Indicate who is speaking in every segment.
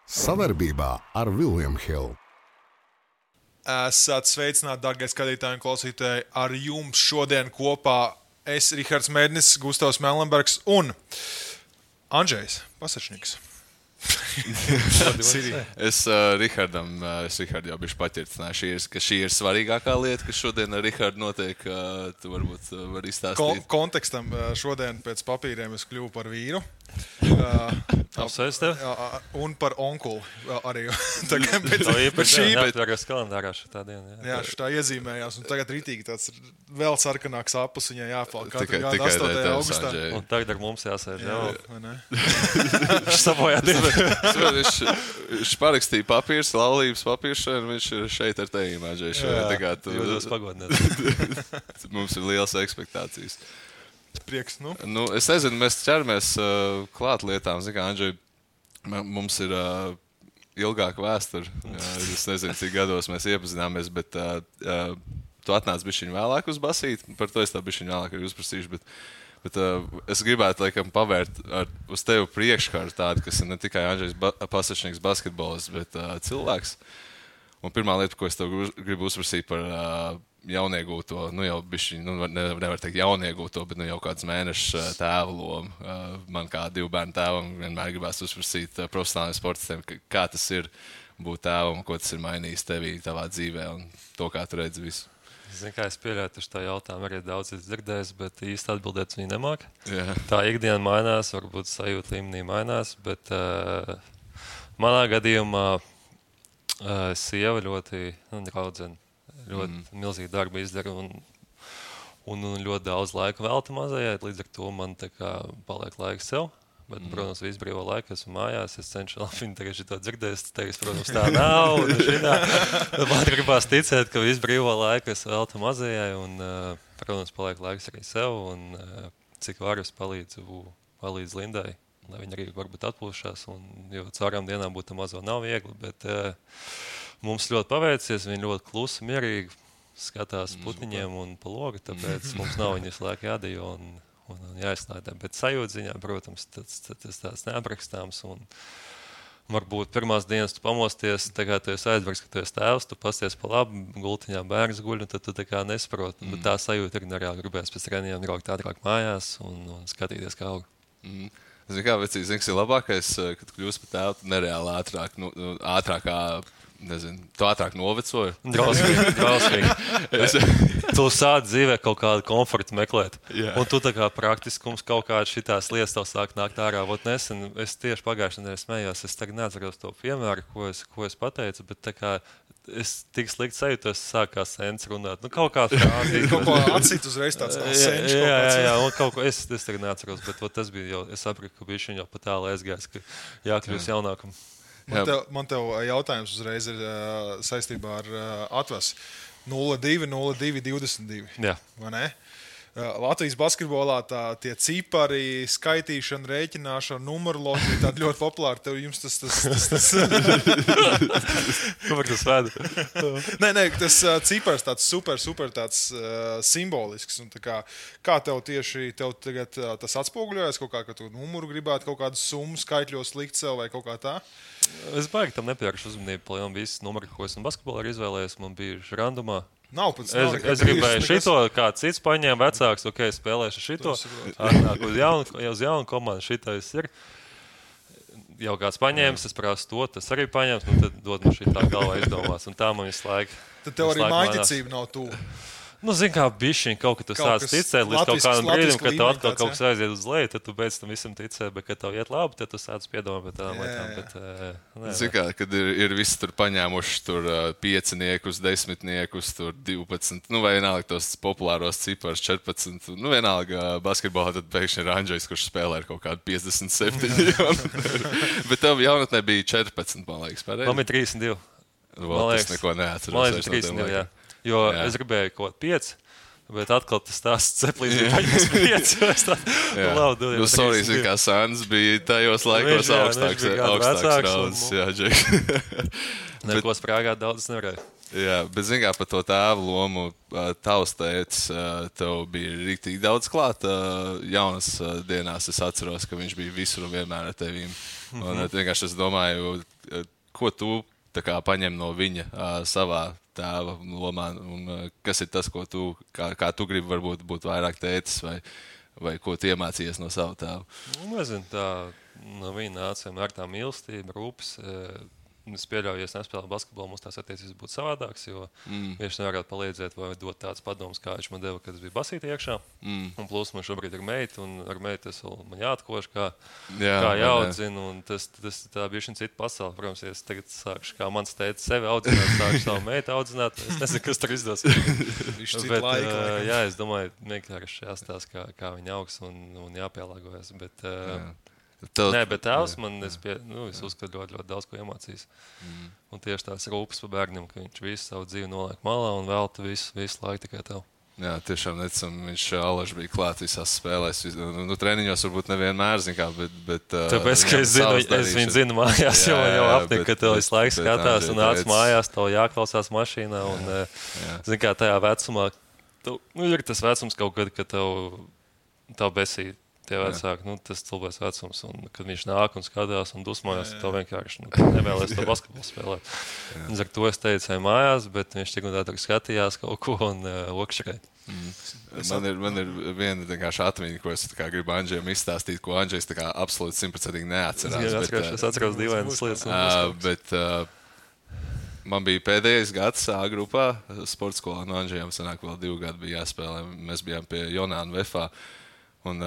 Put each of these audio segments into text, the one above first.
Speaker 1: Sadarbībā ar William Hill.
Speaker 2: Esat sveicināti, darbie skatītāji un klausītāji. Ar jums šodien kopā es, Rihards Mēdnis, Gustavs Melnbergs un Andrzejs Pasačniks.
Speaker 3: Es Rihardam jau biju paķirtināju, ka šī ir svarīgākā lieta, kas šodien ar Rihardu notiek. Tu varbūt vari izstāstīt.
Speaker 2: Kontekstam šodien pēc papīriem es kļuvu par vīru.
Speaker 4: Apsveic tev.
Speaker 2: Un par onkuli arī.
Speaker 4: Tagad kalendārā šitā diena.
Speaker 2: Jā, šitā iezīmējās. Un tagad ritīgi tāds vēl sarkanāks apus viņai jāpalk. Katru gadu
Speaker 3: Tikai
Speaker 2: 8. augustā.
Speaker 4: Un tagad ar mums jāsēž.
Speaker 2: Vai ne?
Speaker 4: Viņš sabojā divi.
Speaker 3: Viņš parakstīja papīrs, laulības papīrs, un viņš ir šeit ar tevi, Andrzej.
Speaker 4: Jūtos pagodināt.
Speaker 3: Mums ir lielas ekspektācijas.
Speaker 2: Prieks, nu.
Speaker 3: Es nezinu, mēs ķeramies klāt lietām. Zini, kā, Andrzej, mums ir ilgāka vēsture. Es nezinu, cik gados mēs iepazināmies, bet tu atnāc bišķiņ vēlāk uz basīti. Par to es tā bišķiņ vēlāk arī uzprasīšu. Bet es gribētu, laikam, pavērt uz tevi priekškaru tādu, kas ir ne tikai Andrzejs Pasačniks basketbolists, bet cilvēks. Un pirmā lieta, ko es tev gribu uzprasīt par jauniegūto, jau bišķiņ, nevar teikt jauniegūto, bet jau kāds mēnešs tēva lomu. Man kā 2 bērnu tēvam vienmēr gribās uzprasīt profesionāliem sportistiem, kā tas ir būt tēvam, ko tas ir mainījis tevī, tavā dzīvē un to, kā tu redzi visu.
Speaker 4: Zini, kā es pieļauju, ka tā jautājumu arī daudz dzirdējis, bet īsti atbildēt viņi nemāk.
Speaker 3: Jā.
Speaker 4: Tā ikdiena mainās, varbūt sajūta līmenī mainās, bet manā gadījumā sieva ļoti draudzene. Ļoti milzīgi darbu izdara un ļoti daudz laika velta mazajai. Līdz ar to man tā kā paliek laiks sev. Bet, protams, visu brīvo laiku esmu mājās. Es cenšos viņu tagad šito dzirdēt. Es teicu, protams, tā nav. Man gribās ticēt, ka visu brīvo laiku es veltu mazajai. Un, protams, paliek laiks arī sev. Un cik varu es palīdzu Lindai, lai viņa arī varbūt atpūšās. Jo caurām dienām būt mazo nav viegli. Bet, mums ļoti paveicies, viņi ļoti klusi, mierīgi skatās putniņiem un pa logu, tāpēc mums nav viņas laika jādejo un jāizslēdē. Bet sajūta ziņā, protams, tas tāds neaprakstāms. Un varbūt pirmās dienas tu pamosties, tā kā tu esi aizvargs, ka tu esi tēvs, tu pasties pa labi, gultiņā bērns guļ, un tad tu tā kā nesaproti. Bet tā sajūta ir nereāli gribēs pēc treniņiem braukt ātrāk mājās un skatīties, kā aug.
Speaker 3: Zini, kā vecīs, zini, kas ir labākais, kad kļūst par tēvu nereāli ātrākā. Nezinu, tu ātrāk novecoji.
Speaker 4: Drausmīgi. Tu sāc dzīvē kaut kādu komfortu meklēt.
Speaker 3: Jā.
Speaker 4: Un tu tā kā praktiskums kaut kādas šitās lietas tev sāk nākt ārā. Nesen, es tieši pagājušajā nedēļā smējos, es tagad neatceros to piemēru, ko es pateicu, bet tā kā es tik slikti sajūtos, sākās sens runāt. Kaut kā frāzīt.
Speaker 2: Kaut ko atsīt uzreiz tāds senš.
Speaker 4: Jā, un kaut ko es tagad neatceros, bet tas bija jau, es sapratu, ka bija viņa jau pat tālu aizgājis, ka jākļūst jaunākam.
Speaker 2: Man tev jautājums uzreiz ir saistībā ar atvasi 02-02-22.
Speaker 4: Jā.
Speaker 2: Vai ne? Latvijas basketbolā tie cipari, skaitīšana, rēķināšana, numeroloģija tāda ļoti populāra. Tev jums tas...
Speaker 4: Kur tas veda?
Speaker 2: Nē, tas cipars tāds super tāds simbolisks. Un kā tev tieši tagad tas atspoguļojas kaut kā, ka tu numuru gribētu kaut kādu summu skaitļos likt sev vai kaut kā tā?
Speaker 4: Es baigi tam nepievēršu uzmanību, palielam visas numuri, ko esmu basketbolā izvēlējies. Man bija randumā. Es gribēju šito, kāds cits paņēma vecāks, spēlēšu šito. Atnāk uz jaunu komandu, šitais ir. Jau kāds paņēmis, es prasu to, tas arī paņēmis, tad dod man šitā galvā izdomās. Un tā man visu laiku.
Speaker 2: Tad tev arī mājticība nav tuvu.
Speaker 4: Zini, kā bišķiņ kaut ka tu sāc ticēt līdz kaut kādam brīdim, kad tev atkal kaut kas aiziet uz leju, tad tu beidz tam visam ticēt, bet kad tev iet labi, tad tu sāc piedomāt par tādām lietām.
Speaker 3: Zini, kā, kad ir visi tur paņēmuši tur 5-niekus, 10-niekus, tur 12, vai vienalga tos populāros ciparus 14, vienalga basketbolā, tad pēkšņi ir Andrzejs, kurš spēlē ar kaut kādu 57. Bet tev jaunatnē bija 14, man liekas, pareizi?
Speaker 4: Man bija 32.
Speaker 3: Tas neko neatceros.
Speaker 4: Man liekas, 32, jā. Jo es gribēju kaut 5, bet atkal tas stāsts ceplīs bija paņems 5.
Speaker 3: Sorry, zin, kā Sāns bija tajos laikos augstāks rauds. Jā, Džek.
Speaker 4: Neko sprāgāt daudz nevarēja.
Speaker 3: Jā, bet zin kā par to tēvu lomu, tavs tētis, tev bija rīktīgi daudz klāt. Jaunas dienās es atceros, ka viņš bija visur un vienmēr ar tevīm. Un vienkārši es domāju, ko tu tā kā paņem no viņa savā tēva lomā, un kas ir tas, ko tu, kā tu gribi varbūt būt vairāk tētis, vai ko tu iemācījies no sava tēva?
Speaker 4: Nezinu, tā no viņa nāca ar tā mīlestība, rūpes. Es pieļauju, ja es nespēlēju basketbolu, mums tās attiecības būtu savādākas, jo viņš nevarētu palīdzēt vai dot tādas padomas, kā viņš man deva, kad es biju basītī iekšā. Un plus man šobrīd ir meita, un ar meitu es vēl man jāatkoš, kā jāaudzina, un tas tā bija šī cita pasaule. Protams, ja es tagad sākšu, kā mans tētis sevi audzināt, sākšu savu meitu audzināt, es nezinu, kas tur izdos. Bet, jā, es domāju, vienkārši jāstās, kā viņa augs un jāpielāgojas, bet... Nē, bet tēvs man es uzskatu ļoti daudz ko iemācījis. Un tieši tās rūpes par bērniem, ka viņš visu savu dzīvi noliek malā un velta visu laiku tikai tev.
Speaker 3: Jā, tiešām necam, viņš alaži bija klāt visās spēlēs. Treniņos varbūt nevienmēr, bet
Speaker 4: tāpēc, ka es viņu zinu mājās, jo man jau apnika, ka tev visu laiku skatās un nāc mājās, tev jāklausās mašīnā. Un, zin kā tajā vecumā, ir tas vecums kaut kad, ka tev besī. Tie vecāki, tas cilvēks vecums, un kad viņš nāk un skatās un dusmojas, tad vienkārši nevēlies to basketbolu spēlēt. Līdz ar to es teicu, mājās, bet viņš tik un tā skatījās kaut ko un okšķerēja.
Speaker 3: Man ir viena vienkārši atmiņa, ko es gribu Andžejam izstāstīt, ko Andžejs absolūti 100% neatcerās.
Speaker 4: Es atceros dīvainas lietas.
Speaker 3: Bet man bija pēdējais gads A grupā, sporta skolā, no Andžejam sanāk vēl 2 gadi bija jāspēlē. Mēs bijām pie Jonāna Vefā. Un,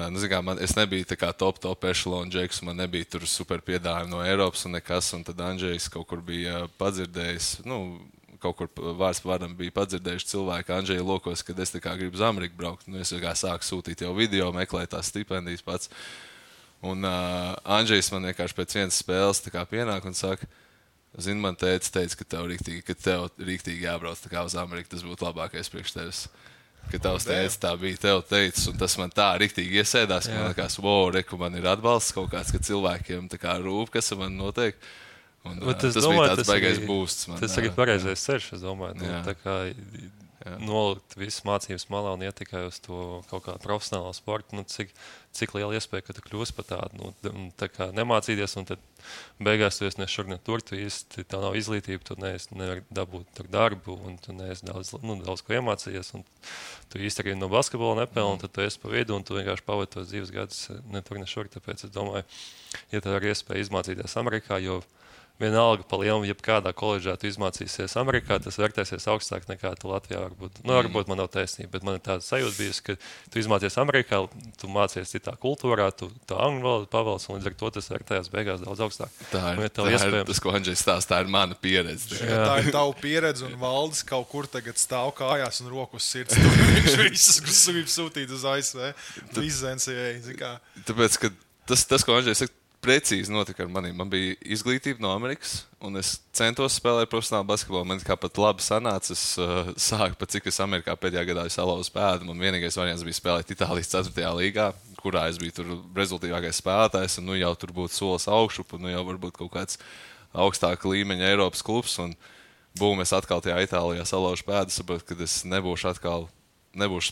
Speaker 3: es nebiju tā kā top ešalona džeks, man nebija tur super piedāvājumi no Eiropas un nekas, un tad Andžejs kaut kur bija padzirdējis, kaut kur vārds par vārdam bija padzirdējuši cilvēki Andžeja lokos, kad es tā kā gribu uz Ameriku braukt. Es sāku sūtīt jau video, meklēt tās stipendijas pats. Un Andžejs man vienkārši pēc vienas spēles tā kā pienāk un saka, zini, man teica, ka tev rīktīgi jābrauc tā kā uz Ameriku, tas būtu labākais priekš tevis. Ka tavs teicis, tā bija tev teicis, un tas man tā riktīgi iesēdās, ka man likās, reku, man ir atbalsts kaut kāds, ka cilvēkiem tā kā rūp, kas man notiek. Un, tas bija tāds baigais būsts.
Speaker 4: Tas arī pareizais ceļš, es domāju. Tā kā nolikt visas mācības malā un iet tikai uz to kaut kādu profesionālo sportu, cik liela iespēja, ka tu kļūsi par tādu, tā kā nemācīties, un tad beigās tu esi ne šur, ne tur, tu īsti, tev nav izglītība, tu nevari dabūt tur darbu, un tu neesi daudz ko iemācījies, un tu īsti arī no basketbola nepelni, un tad tu esi pa vidu, un tu vienkārši pavadi tos dzīves gadus ne tur, ne šur, tāpēc es domāju, ja tev ir iespēja izmācīties Amerikā, jo vienalga pa lielu, jebkādā koledžā tu izmācīsies Amerikā, tas vērtēsies augstāk nekā tu Latvijā varbūt. Varbūt man nav taisnība, bet man ir tāda sajūta bijusi, ka tu izmācies Amerikā, tu mācies citā kultūrā, tu angļu valodu pavalc, un līdz ar to tas vērtējās beigās daudz augstāk.
Speaker 3: Tā ir tas, ko Andžejs stāsta, tā ir mana pieredze.
Speaker 2: Tā ir tava pieredze, un Valdis kaut kur tagad stāv kājās un rokas sirds. Viņš visus grib sūtīt uz ASV.
Speaker 3: Tāpēc, ka tas, ko Andžejs saka, precīzi notika ar maniem. Man bija izglītība no Amerikas, un es centos spēlēt profesionālu basketbolu. Man kā pat labi sanāca, es sāku, pat cik es Amerikā pēdējā gadā salauzu pēdu. Man vienīgais variants bija spēlēt Itālijas 4. līgā, kurā es biju tur rezultīvākais spēlētājs, un jau tur būtu solis augšu, un jau varbūt kaut kāds augstāka līmeņa Eiropas klubs, un es atkal tajā Itālijā salauzu pēdu, saprotu, ka es nebūšu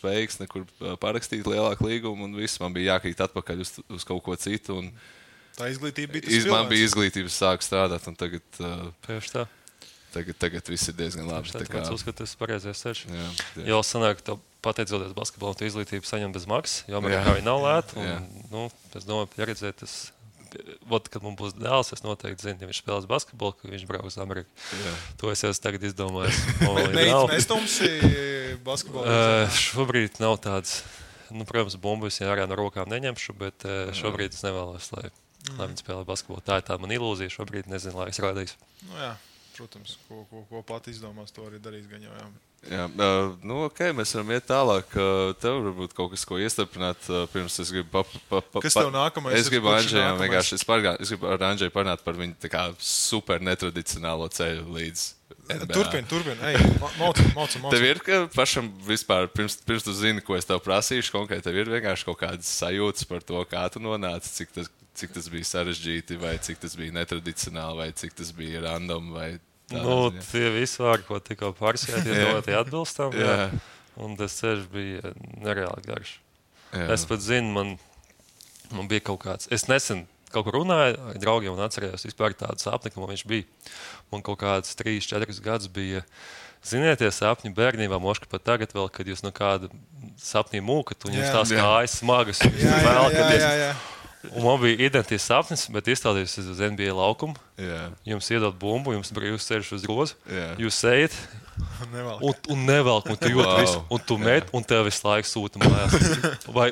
Speaker 3: spējīgs nekur parakstīt lielāku līgumu, un viss man bija jākrīt atpakaļ uz kaut ko citu. Un
Speaker 2: tā izglītība bija tas
Speaker 3: man bija izglītība, sāku strādāt, un tagad viss ir diezgan labi.
Speaker 4: Es uzskatu, tas ir pareizais ceļš. Jo sanāk, ka pateicoties basketbolam, tu izglītību saņem bez maksas, jo Amerikā viņa nav lēta. Es domāju, pieredzēt, kad mums būs dēls, es noteikti zinu, ja viņš spēlēs basketbolu, ka viņš brauks uz Ameriku. To es jau tagad izdomāju.
Speaker 2: Nestumsi basketbolu?
Speaker 4: Šobrīd nav tāds, protams, bumbas ja ārā no rokām neņemšu, bet šobrīd es nevēlos, lai viņi spēlē basketbolu. Tā ir tā man ilūzija, šobrīd nezinu, lai es rādīšu.
Speaker 2: Jā, protams, ko pat izdomās, to arī darīs gan jau.
Speaker 3: Jā, ok, mēs varam iet tālāk. Tev varbūt kaut kas, ko iestarpināt, pirms es gribu
Speaker 2: Kas tev nākamais?
Speaker 3: Es gribu Andžejam vienkārši, es gribu ar Andžeju parunāt par viņu tā kā super netradicionālo ceļu līdz NBA.
Speaker 2: Turpin. Ej, maucam.
Speaker 3: Tev ir, ka pašam vispār, pirms tu zini, ko es tev prasīšu konkrēti, tev ir vienkārši kaut kādas sajūtas par to, kā tu nonāci, cik tas bija sarežģīti, vai cik tas bija netradicionāli, vai cik tas bija random, vai
Speaker 4: tie visi vārdi, ko tikko pārsēt, tie atbilstam, un tas ceļš bija nereāli garš. Es pat zinu, man bija kaut kāds, es nesen kaut kur runāju ar draugiem un atcerējos vispār tādu sapni, ka man viņš bija. Man kaut kāds 3-4 gadus bija, ziniet, tie sapņi bērnībā, moška pat tagad vēl, kad jūs no kāda sapnī mūkat un jums tās kājas smagas.
Speaker 2: Jā.
Speaker 4: Un man bija identisks sapnis, bet izstādījos uz NBA laukumu. Jums iedod bumbu, jums brīvs ceļš uz grozu. Jūs ejat un nevelk, un tu jūti visu, un tu met, un tev visu laiku sūta mājās. Vai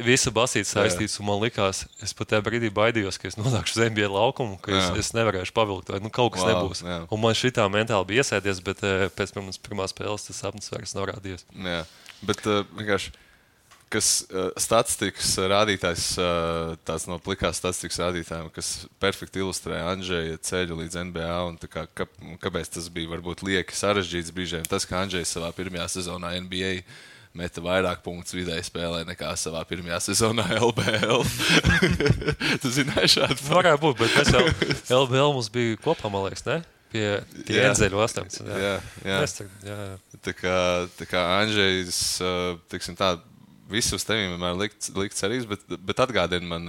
Speaker 4: visa basīta saistīts, un man likās, es pat tajā brīdī baidījos, ka es nonākšu uz NBA laukumu, ka es nevarēšu pavilkt, vai kaut kas nebūs. Un man šitā mentāli bija iesēdies, bet pēc pirmās spēles tas sapnis vairs nav rādījies.
Speaker 3: Jā, bet vienkārši kas statistikas rādītājs, tāds no plikās statistikas rādītājiem, kas perfekti ilustrē Andžeja ceļu līdz NBA un kāpēc tas bija varbūt lieki sarežģīts brīžiem. Tas, ka Andžejs savā pirmajā sezonā NBA meta vairāk punktus vidēji spēlē nekā savā pirmajā sezonā LBL. Tu zināji šādu?
Speaker 4: Varētu būt, bet mēs jau LBL mums bija kopā, man liekas, ne? Pie Enzeļu 18.
Speaker 3: Jā. Tā kā Andžejs, tiksim tā, visu uz tevīm vienmēr likt cerības, bet atgādini man,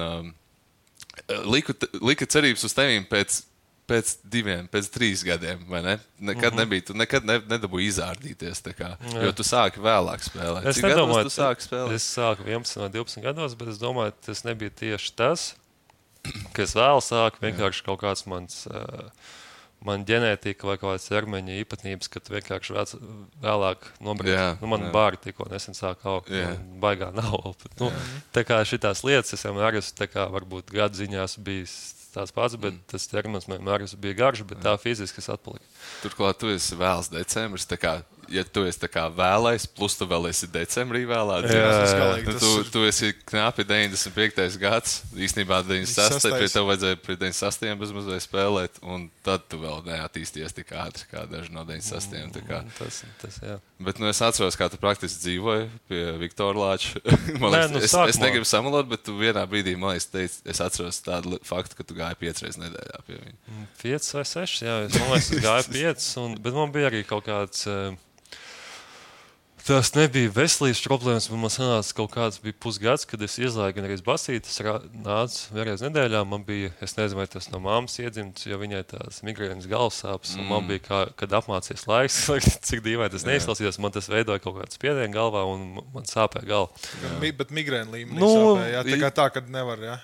Speaker 3: lika cerības uz tevīm pēc 3 gadiem, vai ne? Nekad nebija, tu nekad nedabūji izārdīties, jo tu sāki vēlāk spēlēt.
Speaker 4: Cik gados tu sāki spēlēt? Es sāku 11 vai 12 gados, bet es domāju, tas nebija tieši tas, ka es vēl sāku vienkārši kaut kāds man ģenētika vai kaut kādas ķermeņa īpatnības, ka tu vienkārši vēlāk nobrīd. Man bāri tikko nesen sāk augt, baigā nav. Tā kā šitās lietas es vienmēr esmu, tā kā varbūt gadu ziņās bijis tās pats, bet tas ķermenis vienmēr bija garš, bet tā fiziski es atpaliku.
Speaker 3: Turklāt tu esi vēls decembris, tā kā, ja tu esi tā kā vēlais, plus tu vēl esi decembrī vēlā dzīves. Tu esi knapi 95. gads, īstenībā 96. Pie tev vajadzēja pie 98. bezmazliet spēlēt, un tad tu vēl neattīsties tik ātri, kā daži no 98.
Speaker 4: Tas, jā.
Speaker 3: Bet es atceros, kā tu praktiski dzīvoji pie Viktora Lāča. Es negribu samalot, bet tu vienā brīdī, man liekas, teici, es atceros tādu faktu, ka tu gāji 5 reizes nedēļā pie viņa.
Speaker 4: 5 vai 6, jā. Man liekas, es gāju 5, bet man bija arī kaut kāds... Tas nebija veselības problēmas, bet man sanāca kaut kāds bija pusgads, kad es izlaigu gan arī basīt. Es nācu vienreiz nedēļā, man bija, es nezinu, vai tas no mammas iedzimts, jo viņai tās migrēnas galvasāpes, un man bija, kad apmācies laiks, cik dīvaini tas neizklausījās, man tas veidoja kaut kāds spiedienu galvā, un man sāpēja galva.
Speaker 2: Bet migrēna līmenī sāpēja, tā kad nevar, jā?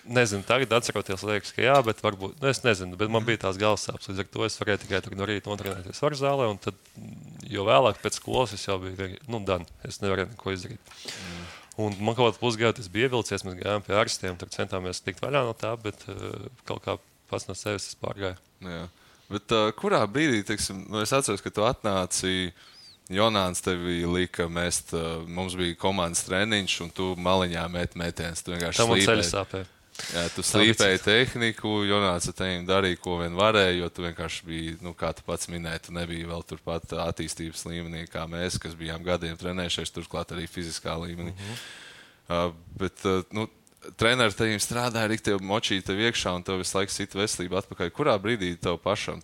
Speaker 4: Nezinu, tagad atceroties, liekas, ka jā, bet varbūt, es nezinu, bet man bija tās galvasāpes, līdz ar to es varēju tikai no rīta notrenēties varu zālē, un tad, jo vēlāk pēc skolas es jau biju, es nevarēju neko izdarīt. Un man kaut kādā pusgadā tas bija ievilcies, mēs gājām pie ārstiem, tur centāmies tikt vaļā no tā, bet kaut kā pats no sevis es pārgāju.
Speaker 3: Jā, bet kurā brīdī, teiksim, es atceros, ka tu atnāci, Jonāns tevi lika mest, mums bija komandas treniņš, un tu maliņā mētienes, tu vienkārši
Speaker 4: slīpēji. Tā man ceļa sāpēja.
Speaker 3: Jā, tu slīpēji tehniku, Jonāns ar tevi darīja, ko vien varēja, jo tu vienkārši biji, kā tu pats minēji, tu nebija vēl turpat attīstības līmenī, kā mēs, kas bijām gadiem trenējušies, turklāt arī fiziskā līmenī. Bet, treneri tevim strādāja, riktev močīja tev iekšā, un tev visu laiku sita veselība atpakaļ. Kurā brīdī tev pašam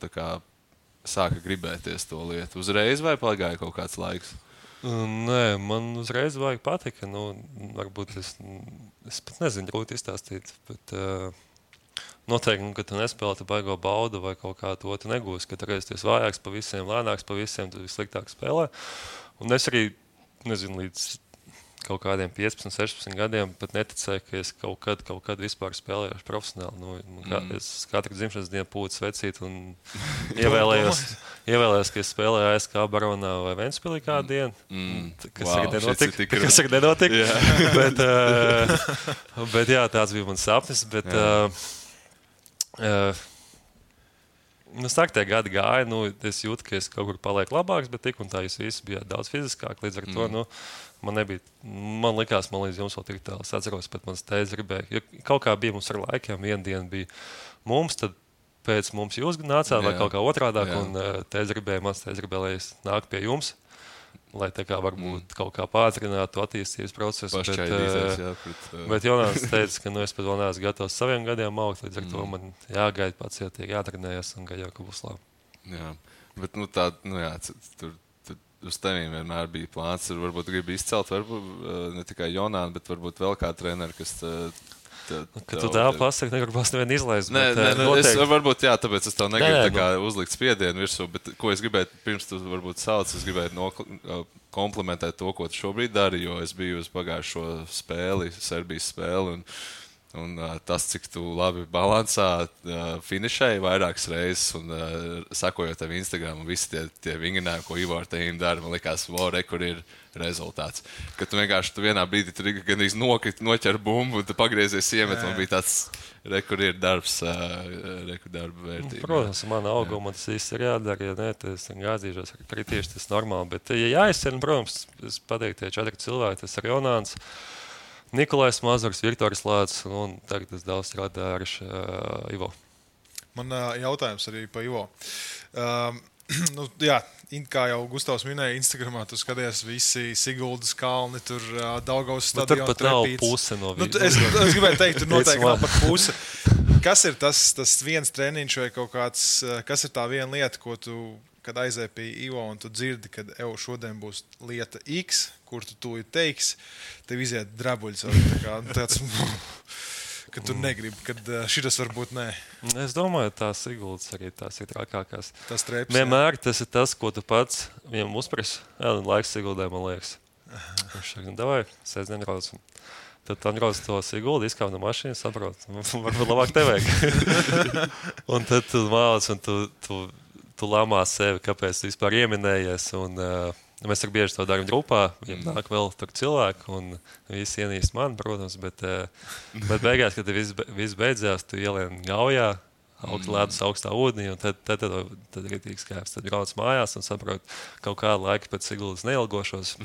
Speaker 3: sāka gribēties to lietu? Uzreiz vai pagāja kaut kāds laiks?
Speaker 4: Nē, man uzreiz vajag patika. Varbūt es pat nezinu, grūti izstāstīt, bet noteikti, ka tu nespēlē, tu baigo baudu vai kaut kā to tu negūsi, ka tu reiz tu esi vājāks pa visiem, lēnāks pa visiem, tu vissliktāk spēlē. Un es arī, nezinu, līdz kaut kādiem 15, 16 gadiem pat neticēju, ka es kaut kad vispār spēlējuši profesionāli. Es katru dzimšanas dienu pūtu svecīt un ievēlējos, ka es spēlēju ASK Baronā vai Ventspilī kādu dienu, kas arī nenotika. Bet jā, tāds bija mans sapnis, bet tie gadi gāja, es jūtu, ka es kaut kur palieku labāks, bet tik un tā jūs visi bijāt daudz fiziskāk, līdz ar to, man likās, man līdz jums vēl tik tālu. Es atceros, pat mans tēvs gribēja, jo kaut kā bija mums ar laikiem, viena diena bija mums, tad pēc mums jūs nācāt vai kaut kā otrādāk, un mans tēvs gribēja, lai es nāku pie jums, lai tā kā varbūt kaut kā pātrinātu attīstības procesu. Bet Jonāns teica, ka es pat vēl neesmu gatavs saviem gadiem augt, līdz ar to man jāgaida pacietīgi, jātrenējas un gaļā, ka būs labi.
Speaker 3: Jā, bet tur uz tevīm vienmēr bija plāns, varbūt gribi izcelt, varbūt ne tikai Jonānu, bet varbūt vēl kā treneri, kas
Speaker 4: Ka tu tā pasaki, negribas nevienu izlaist.
Speaker 3: Nē, varbūt, jā, tāpēc es tev negribu tā kā uzlikt spiedienu virsū, bet ko es gribēju, pirms tu varbūt sauc, es gribēju komplimentēt to, ko tu šobrīd dari, jo es biju uz pagājušo spēli, Serbijas spēli, un tas, cik tu labi balansā finišēji vairākas reizes un sakojot tev Instagram un visi tie vingrinājumi, ko Ivo ar tevi dara, man likās, kur ir rezultāts. Ka tu vienkārši vienā brīdī tur gandrīz noķer bumbu un tu pagriezies iemet, man bija tāds kur ir darbs, darba vērtība.
Speaker 4: Protams, man auguma tas viss ir jādara, ja ne, tas gāzīšos, kritīši tas normāli, bet ja jāizcena, protams, es pateiktu, tie 4 cilvēki, tas ir Jonāns, Nikolais Mazurs, Viktors Lācis un tagad es daudz strādāju ar Ivo.
Speaker 2: Man jautājums arī pa Ivo. Jā, kā jau Gustavs minēja, Instagramā tu skaties visi Siguldas kalni, tur Daugavas stadionu.
Speaker 4: Tur pat nav puse no viņa.
Speaker 2: Es gribēju teikt, tur noteikti nav pat puse. Kas ir tas viens treniņš vai kaut kāds, kas ir tā viena lieta, ko tu, kad aizēji pie Ivo un tu dzirdi, kad šodien būs lieta X, kur tu teiksi, tev iziet drabuļs. Tāds, ka tu negribi, kad šitas varbūt nē.
Speaker 4: Es domāju, tās Siguldas arī tās ir trakākās.
Speaker 2: Tas treps,
Speaker 4: vienmēr tas ir tas, ko tu pats viņam uzprasi. Jā, laiks Siguldai, man liekas. Viņš saka, davai, sēdien brauc. Tad tu atbrauc to Siguldu, izkāp no mašīnas, saprot, varbūt labāk te vajag. Un tad tu māc un tu lamā sevi, kāpēc tu vispār ieminējies. Un, mēs ar bieži to darām grupā, viņam nāk vēl tur cilvēki, un visi ienīst mani, protams, bet beigās, kad viss beidzās, tu ielien gaujā, ledus augstā ūdenī, un tad ir tīk skaips. Tad brauc mājās un saprot, kaut kādu laiku pēc Siguldas neilgošos.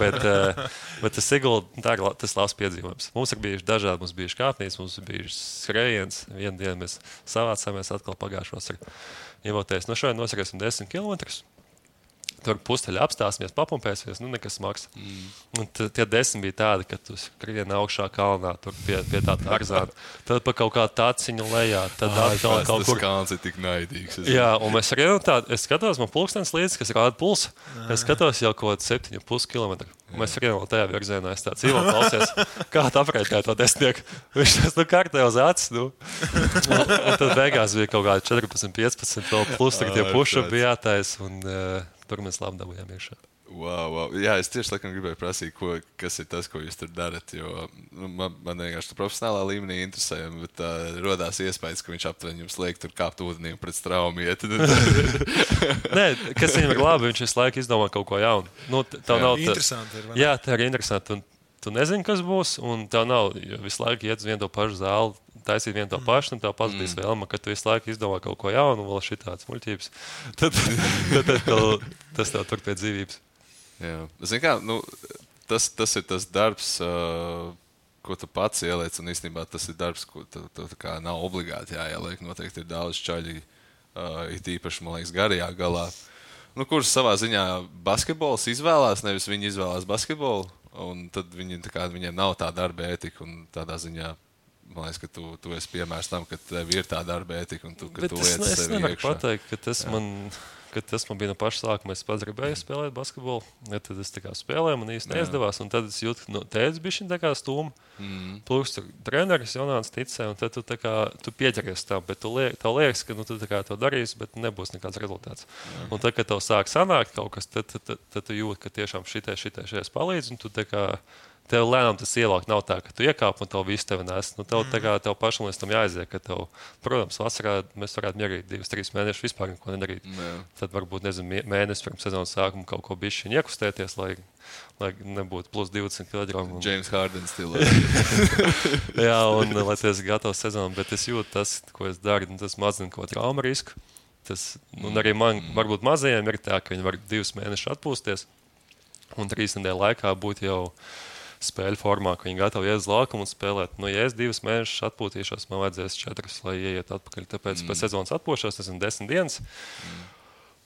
Speaker 4: bet tas Sigulda, tas labs piedzīvojums. Mums ir bijuši dažādi, mums bijuši kāpnīs, mums ir bijuši skrējiens. Vienu dienu mēs savācāmies atkal pagājušos ar ievoties. No šodien nosarēsim 10 kilometrus. Tur pusteļi apstāsimies, papumpēsimies, nekas maks. Un tie 10 bija tādi, ka tu skrien augšā kalnā, tur pie tā arzāna. Tad pa kaut kādu taciņu lejā. Tad atkal kaut kur.
Speaker 3: Tas kalns ir tik naidīgs.
Speaker 4: Jā, un mēs skrienam tādu, es skatos, man pulkstens līdzi, kas rāda pulsu. Es skatos jau kaut 7,5 kilometru. Un mēs skrienam tajā virzienā. Es tāds Ivo klausies, kā tu aprēķināji to desmitnieku. Viņš tas kārtē uz acis. Un tad beigās bija kaut kādi 14, 15, vēl plus tie puši bija jātais. Un tur mēs labi dabūjām iekšā.
Speaker 3: Wow. Jā, es tieši laikam gribēju prasīt, kas ir tas, ko jūs tur darat. Jo man vienkārši profesionālā līmenī interesē, bet rodās iespējas, ka viņš aptuveni jums liek tur kāpt ūdenī un pret straumu iet.
Speaker 4: Nē, kas viņam ir labi, viņš visu laiku izdomā kaut ko jaunu.
Speaker 2: Interesanti ir.
Speaker 4: Jā, tā ir interesanti. Tu nezini, kas būs, un tev nav visu laiku iet uz vienu to pašu zāli, taisīt vienu to pašu, un tev pats bija vēlma, ka tu visu laiku izdomā kaut ko jaunu, un vēl šitāds muļķības. Tad tas tev tur pie dzīvības.
Speaker 3: Jā. Zini kā, tas ir tas darbs, ko tu pats ieliec, un īstenībā tas ir darbs, ko tu kā nav obligāti jāieliek. Noteikti ir daudz čaļi, it īpaši, man liekas, garajā galā. Kurš savā ziņā basketbols izvēlās, nevis viņi izvēlās basketbolu, un tad viņiem nav tā darba ētika, un tādā ziņā, man liekas, ka tu esi piemērs tam, ka tev ir tā darba ētika, un ka tu liec sevi iekšā.
Speaker 4: Es nevaru pateikt, ka tas man bija no paša sākuma. Es pats gribēju spēlēt basketbolu, ja tad es spēlēju, man īsti neizdevās, un tad es jūtu, ka tēdz bišķiņ tā kā stūma. Plus tur treneris Jonāns ticēja, un tad tu pieķeries tam, bet tev liekas, ka tu to darīsi, bet nebūs nekāds rezultāts. Un tad, kad tev sāk sanākt kaut kas, tad tu jūti, ka tiešām šitais palīdz, un tu tev lēnām tas ielāk nav tā, ka tu iekāp un tev visu tevi nes. Tev pašam līdz tam jāaiziet, ka tev, protams, vasarā mēs varētu mierīt 2-3 mēnešus vispār neko nedarīt. Tad varbūt, mēnesis pirms sezonas sākuma kaut ko bišķiņ iekustēties, lai nebūtu plus 20 kg.
Speaker 3: James Harden stilā.
Speaker 4: Jā, un lai tu esi gatavs sezonam, bet es jūtu tas, ko es daru, tas mazina ko trauma risku. Un arī man, varbūt mazajiem ir tā, ka viņi var 2 mēnešus atpūsties un 3 nedēļu laikā būt jau spēļu formā, ka viņi gatavi iet uz laukumu un spēlēt. Ja es 2 mēnešus atpūtīšos, man vajadzēs 4, lai ieiet atpakaļ. Tāpēc pēc sezonas atpūšos, tas ir 10 dienas.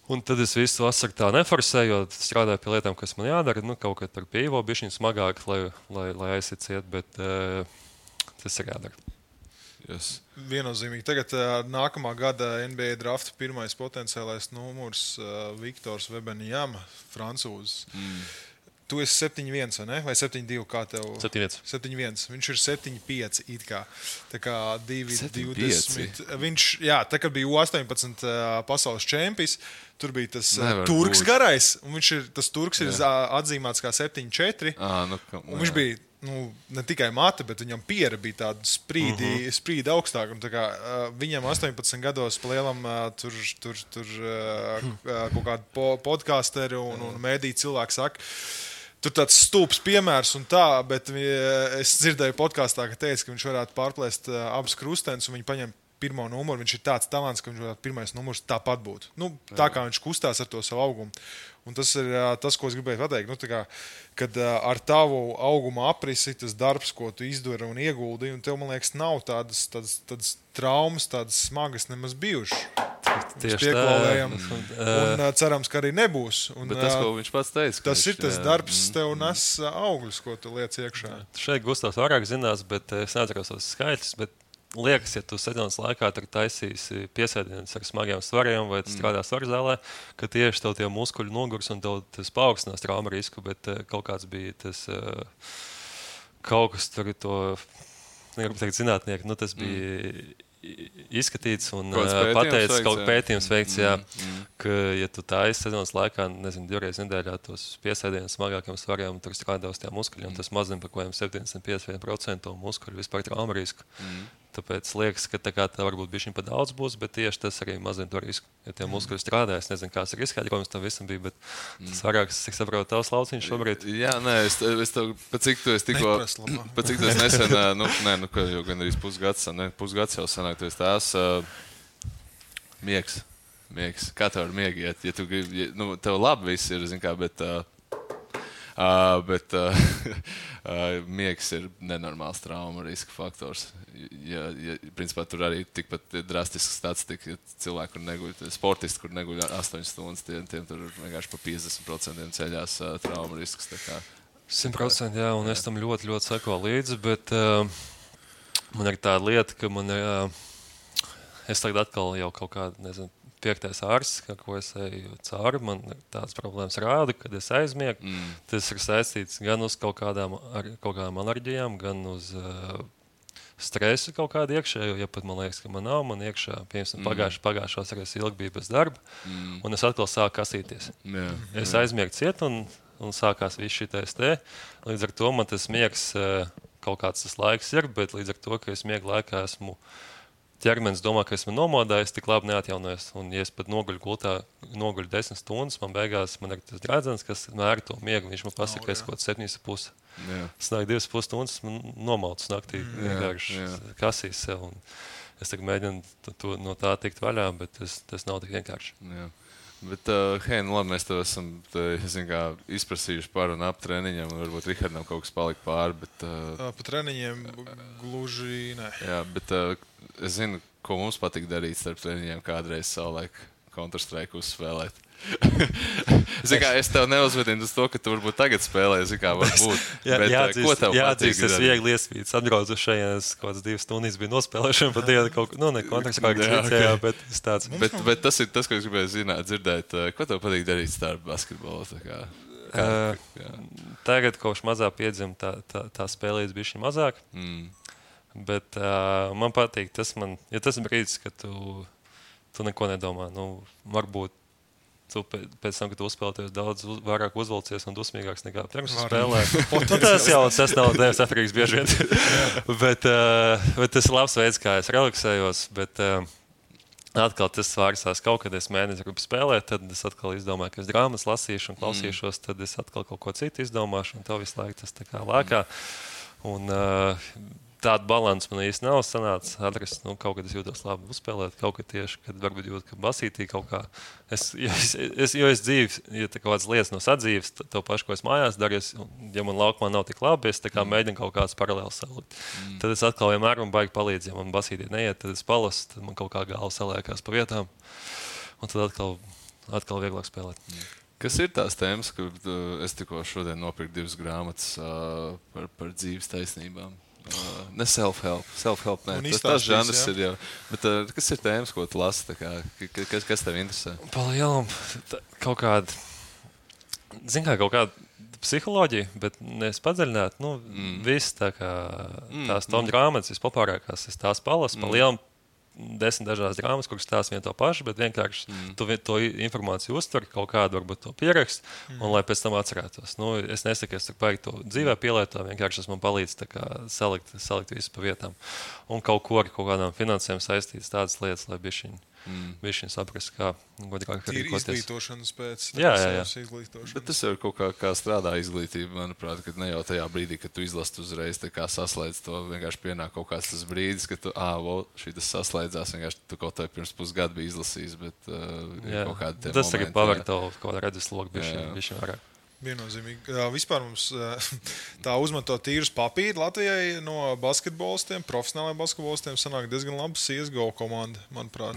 Speaker 4: Un tad es visu vasaru tā neforsēju, jo strādāju pie lietām, kas man jādara. Kaut kā tur pie Ivo bišķiņ smagāk, lai aiziet ciet, bet tas ir jādara.
Speaker 2: Yes. Viennozīmīgi. Tagad nākamā gada NBA drafta pirmais potenciālais numurs Viktors Wembanyama, francūzs. tu esi 7-1, vai ne? Vai 7-2, kā tev?
Speaker 4: 7-1.
Speaker 2: 7-1. Viņš ir 7-5 it kā. Tā kā 2-20.
Speaker 3: 7-5.
Speaker 2: Viņš, jā, tā kā bija U18 pasaules čempions, tur bija tas
Speaker 3: Nevar
Speaker 2: turks
Speaker 3: būt.
Speaker 2: garais, un tas turks ir atzīmēts kā 7-4. Un viņš bija ne tikai mate, bet viņam piera bija tāda sprīdi augstāk. Un, tā kā, viņam 18 gados lielam tur kaut kādi podkasteri un mēdī cilvēki saka, tur tāds stulbs piemērs un tā, bet es dzirdēju podkāstā, ka teica, ka viņš varētu pārplēst abus krustenus un viņi paņem pirmo numuru. Viņš ir tāds talants, ka viņš varētu pirmais numurs tāpat būt. Tā kā viņš kustās ar to savu augumu. Un tas ir tas, ko es gribēju pateikt. Kad ar tavu auguma aprisi, tas darbs, ko tu izdari un ieguldīji, un tev, man liekas, nav tādas traumas, tādas smagas nemaz bijušas.
Speaker 4: Tieši
Speaker 2: pieklauvējam. Un cerams, ka arī nebūs.
Speaker 3: Bet tas, ko viņš pats teica.
Speaker 2: Tas ir tas darbs, tev nes augļus, ko tu liec iekšā.
Speaker 4: Šeit Gustavs vairāk zinās, bet es neatceros tos skaitļus. Liekas, ja tu sezonas laikā taisīsi piesēdienus ar smagiem svariem vai strādā svarzālē, ka tieši tev tie muskuļi nogurs un tev tas paaugstinās trauma risku, bet kaut kāds bija tas kaut kas tur to, negribu teikt zinātnieki, tas bija izskatīts un pateicis, kaut pētījums veikts, ka, ja tu taisi sezonas laikā, nezinu, 2 reizes nedēļā tos piesēdienus smagākiem svariem, tur strādā uz tiem muskuļiem, tas mazina par kaut kādiem 75% muskuļu vispār trauma risku. Tāpēc liekas, ka tā varbūt bišķiņ pa daudz būs, bet tieši tas arī mazina to risku. Ja tie muskuļi strādā, es nezinu, kāds ir izskaidrojums tam visam bija, bet tas vairāk, es saprotu, tavs lauciņš šobrīd.
Speaker 3: Jā, nē, es tev, pat cik tu nesen, ka jau gan arī pusgads jau sanāk, tu esi tās miegs. Kā tev ar miegu iet? Ja tu gribi, tev labi viss ir, zin kā, bet miegs ir nenormāls trauma riska faktors. Principā tur arī tikpat drastisks statistika, cilvēki, kur neguļ, sportisti, kur neguļ 8 stundas, tiem tur vienkārši pa 50% ceļās trauma risks.
Speaker 4: 100%, jā, un es tam ļoti, ļoti seko līdzi, bet man ir tāda lieta, ka man ir, es tagad atkal jau kaut kādu, nezinu, 5. ārsts, ko es eju cauri, man tādas problēmas rāda, kad es aizmiegu. Tas ir saistīts gan uz kaut kādām alerģijām, gan uz stresu kaut kādu iekšējo, ja pat man liekas, ka man nav, man iekšā, piemēram, pagājušos arī es ilgi biju bez darba, un es atkal sāku kasīties. Es aizmiegu ciet, un sākās viss šitais te. Līdz ar to man tas miegs, kaut kāds tas laiks ir, bet līdz ar to, ka es miegu laikā esmu ķermenis domā, ka esmu nomodājis, tik labi neatjaunojies. Un, ja es pat noguļu gultā, noguļu 10 stundas, man beigās man ir tas drēdzens, kas mēra to miegu. Viņš man pasaka, ka es kaut 7,5. Snāk 2,5 stundas, man nomautas naktī. Vienkārši kasīs sev. Un es tagad mēģinu no tā tikt vaļā, bet tas nav tik vienkārši.
Speaker 3: Jā. Bet, hei, labi, mēs tev esam izprasījuši par un ap treniņiem, un varbūt Rihardam kaut kas palika pāri, bet...
Speaker 2: Pa treniņiem gluži ne.
Speaker 3: Jā, bet es zinu, ko mums patīk darīt starp treniņiem kādreiz savulaik Counter-Strike uzspēlēt. Es tev neuzvedinu uz to, ka tu varbūt tagad spēlē, varbūt.
Speaker 4: Jāatzīst, es viegli iespīts. Atbraucu šajās kaut kādas 2 stundas bija nospēlēšana pa dienu kaut ko, ne Counter-Strike vicējā, bet es tāds.
Speaker 3: Bet tas ir tas, ko es gribēju dzirdēt. Ko tev patīk darīt starp basketbolu?
Speaker 4: Tagad kopš mazā piedzim tā spēlējas bišķi mazāk. Bet man patīk, tas ir brīdis, ka tu neko nedomā. Varbūt tu pēc tam, kad tu uzspēlēties daudz vairāk uzvalcies un dusmīgāks nekā pirms spēlē. Tas nav Dievs atkarīgs bieži vien. bet tas ir labs veids, kā es relaksējos. Bet atkal tas svārsās kaut kad es mēnesi gribu spēlēt, tad es atkal izdomāju, ka es grāmatas lasīšu un klausīšos, tad es atkal kaut ko citu izdomāšu un tev visu laiku tas tā kā lēkā. Un tādu balansu man īsti nav sanācis atrast. Kaut kad es jūtos labi uzspēlēt, kaut kad tieši, kad varbūt jūt, ka basītī kaut kā. Jo es dzīves, ja kaut kādas lietas no sadzīves, to pašu, ko es mājās daru, ja man laukumā nav tik labi, es tā kā mēģinu kaut kāds paralēls salikt. Tad es atkal vienmēr man baigi palīdz, ja man basītī neiet, tad es palasu, tad man kaut kā galva saliekās pa vietām. Un tad atkal vieglāk spēlēt.
Speaker 3: Kas ir tās tēmas, ka es tikko šodien nopirku 2 grāmatas par dzīves taisnībām? Ne self-help, ne. Tas žanrs ir jau. Bet kas ir tēmas, ko tu lasi? Kas tev interesē?
Speaker 4: Palielam, kaut kāda, kaut kāda psiholoģiju, bet nevis padziļināt. Viss tās tom grāmatas vispopārākās, es tās palasu pa lielam 10 dažādas drāmas, kuras stāsta vienu to pašu, bet vienkārši tu to informāciju uztver, kaut kādu varbūt to pierakst, un lai pēc tam atcerētos. Es nesaku, es baigi to dzīvē pielietoju, vienkārši tas man palīdz salikt visu pa vietām. Un kaut kādām finansēm saistītas tādas lietas, lai bišķiņ saprast, kā godīgāk rīkoties.
Speaker 2: Izglītošanas pēc.
Speaker 4: Jā.
Speaker 3: Bet tas jau kaut kā strādā izglītība, manuprāt, ka ne jau tajā brīdī, kad tu izlasi uzreiz saslēdz to, vienkārši pienāk kaut kāds tas brīdis, ka tu, šī tas saslēdzās, vienkārši tu kaut kā pirms pusgadu biji izlasījis, bet kaut kādi tie
Speaker 4: tas tagad paver tavu kaut kādā redzeslogu bišķiņ vairāk.
Speaker 2: Viennozīmīgi. Vispār mums tā uzmeto tīrus papīri Latvijai no basketbolistiem, profesionālajiem basketbolistiem sanāk diezgan laba CSGO komanda, manuprāt.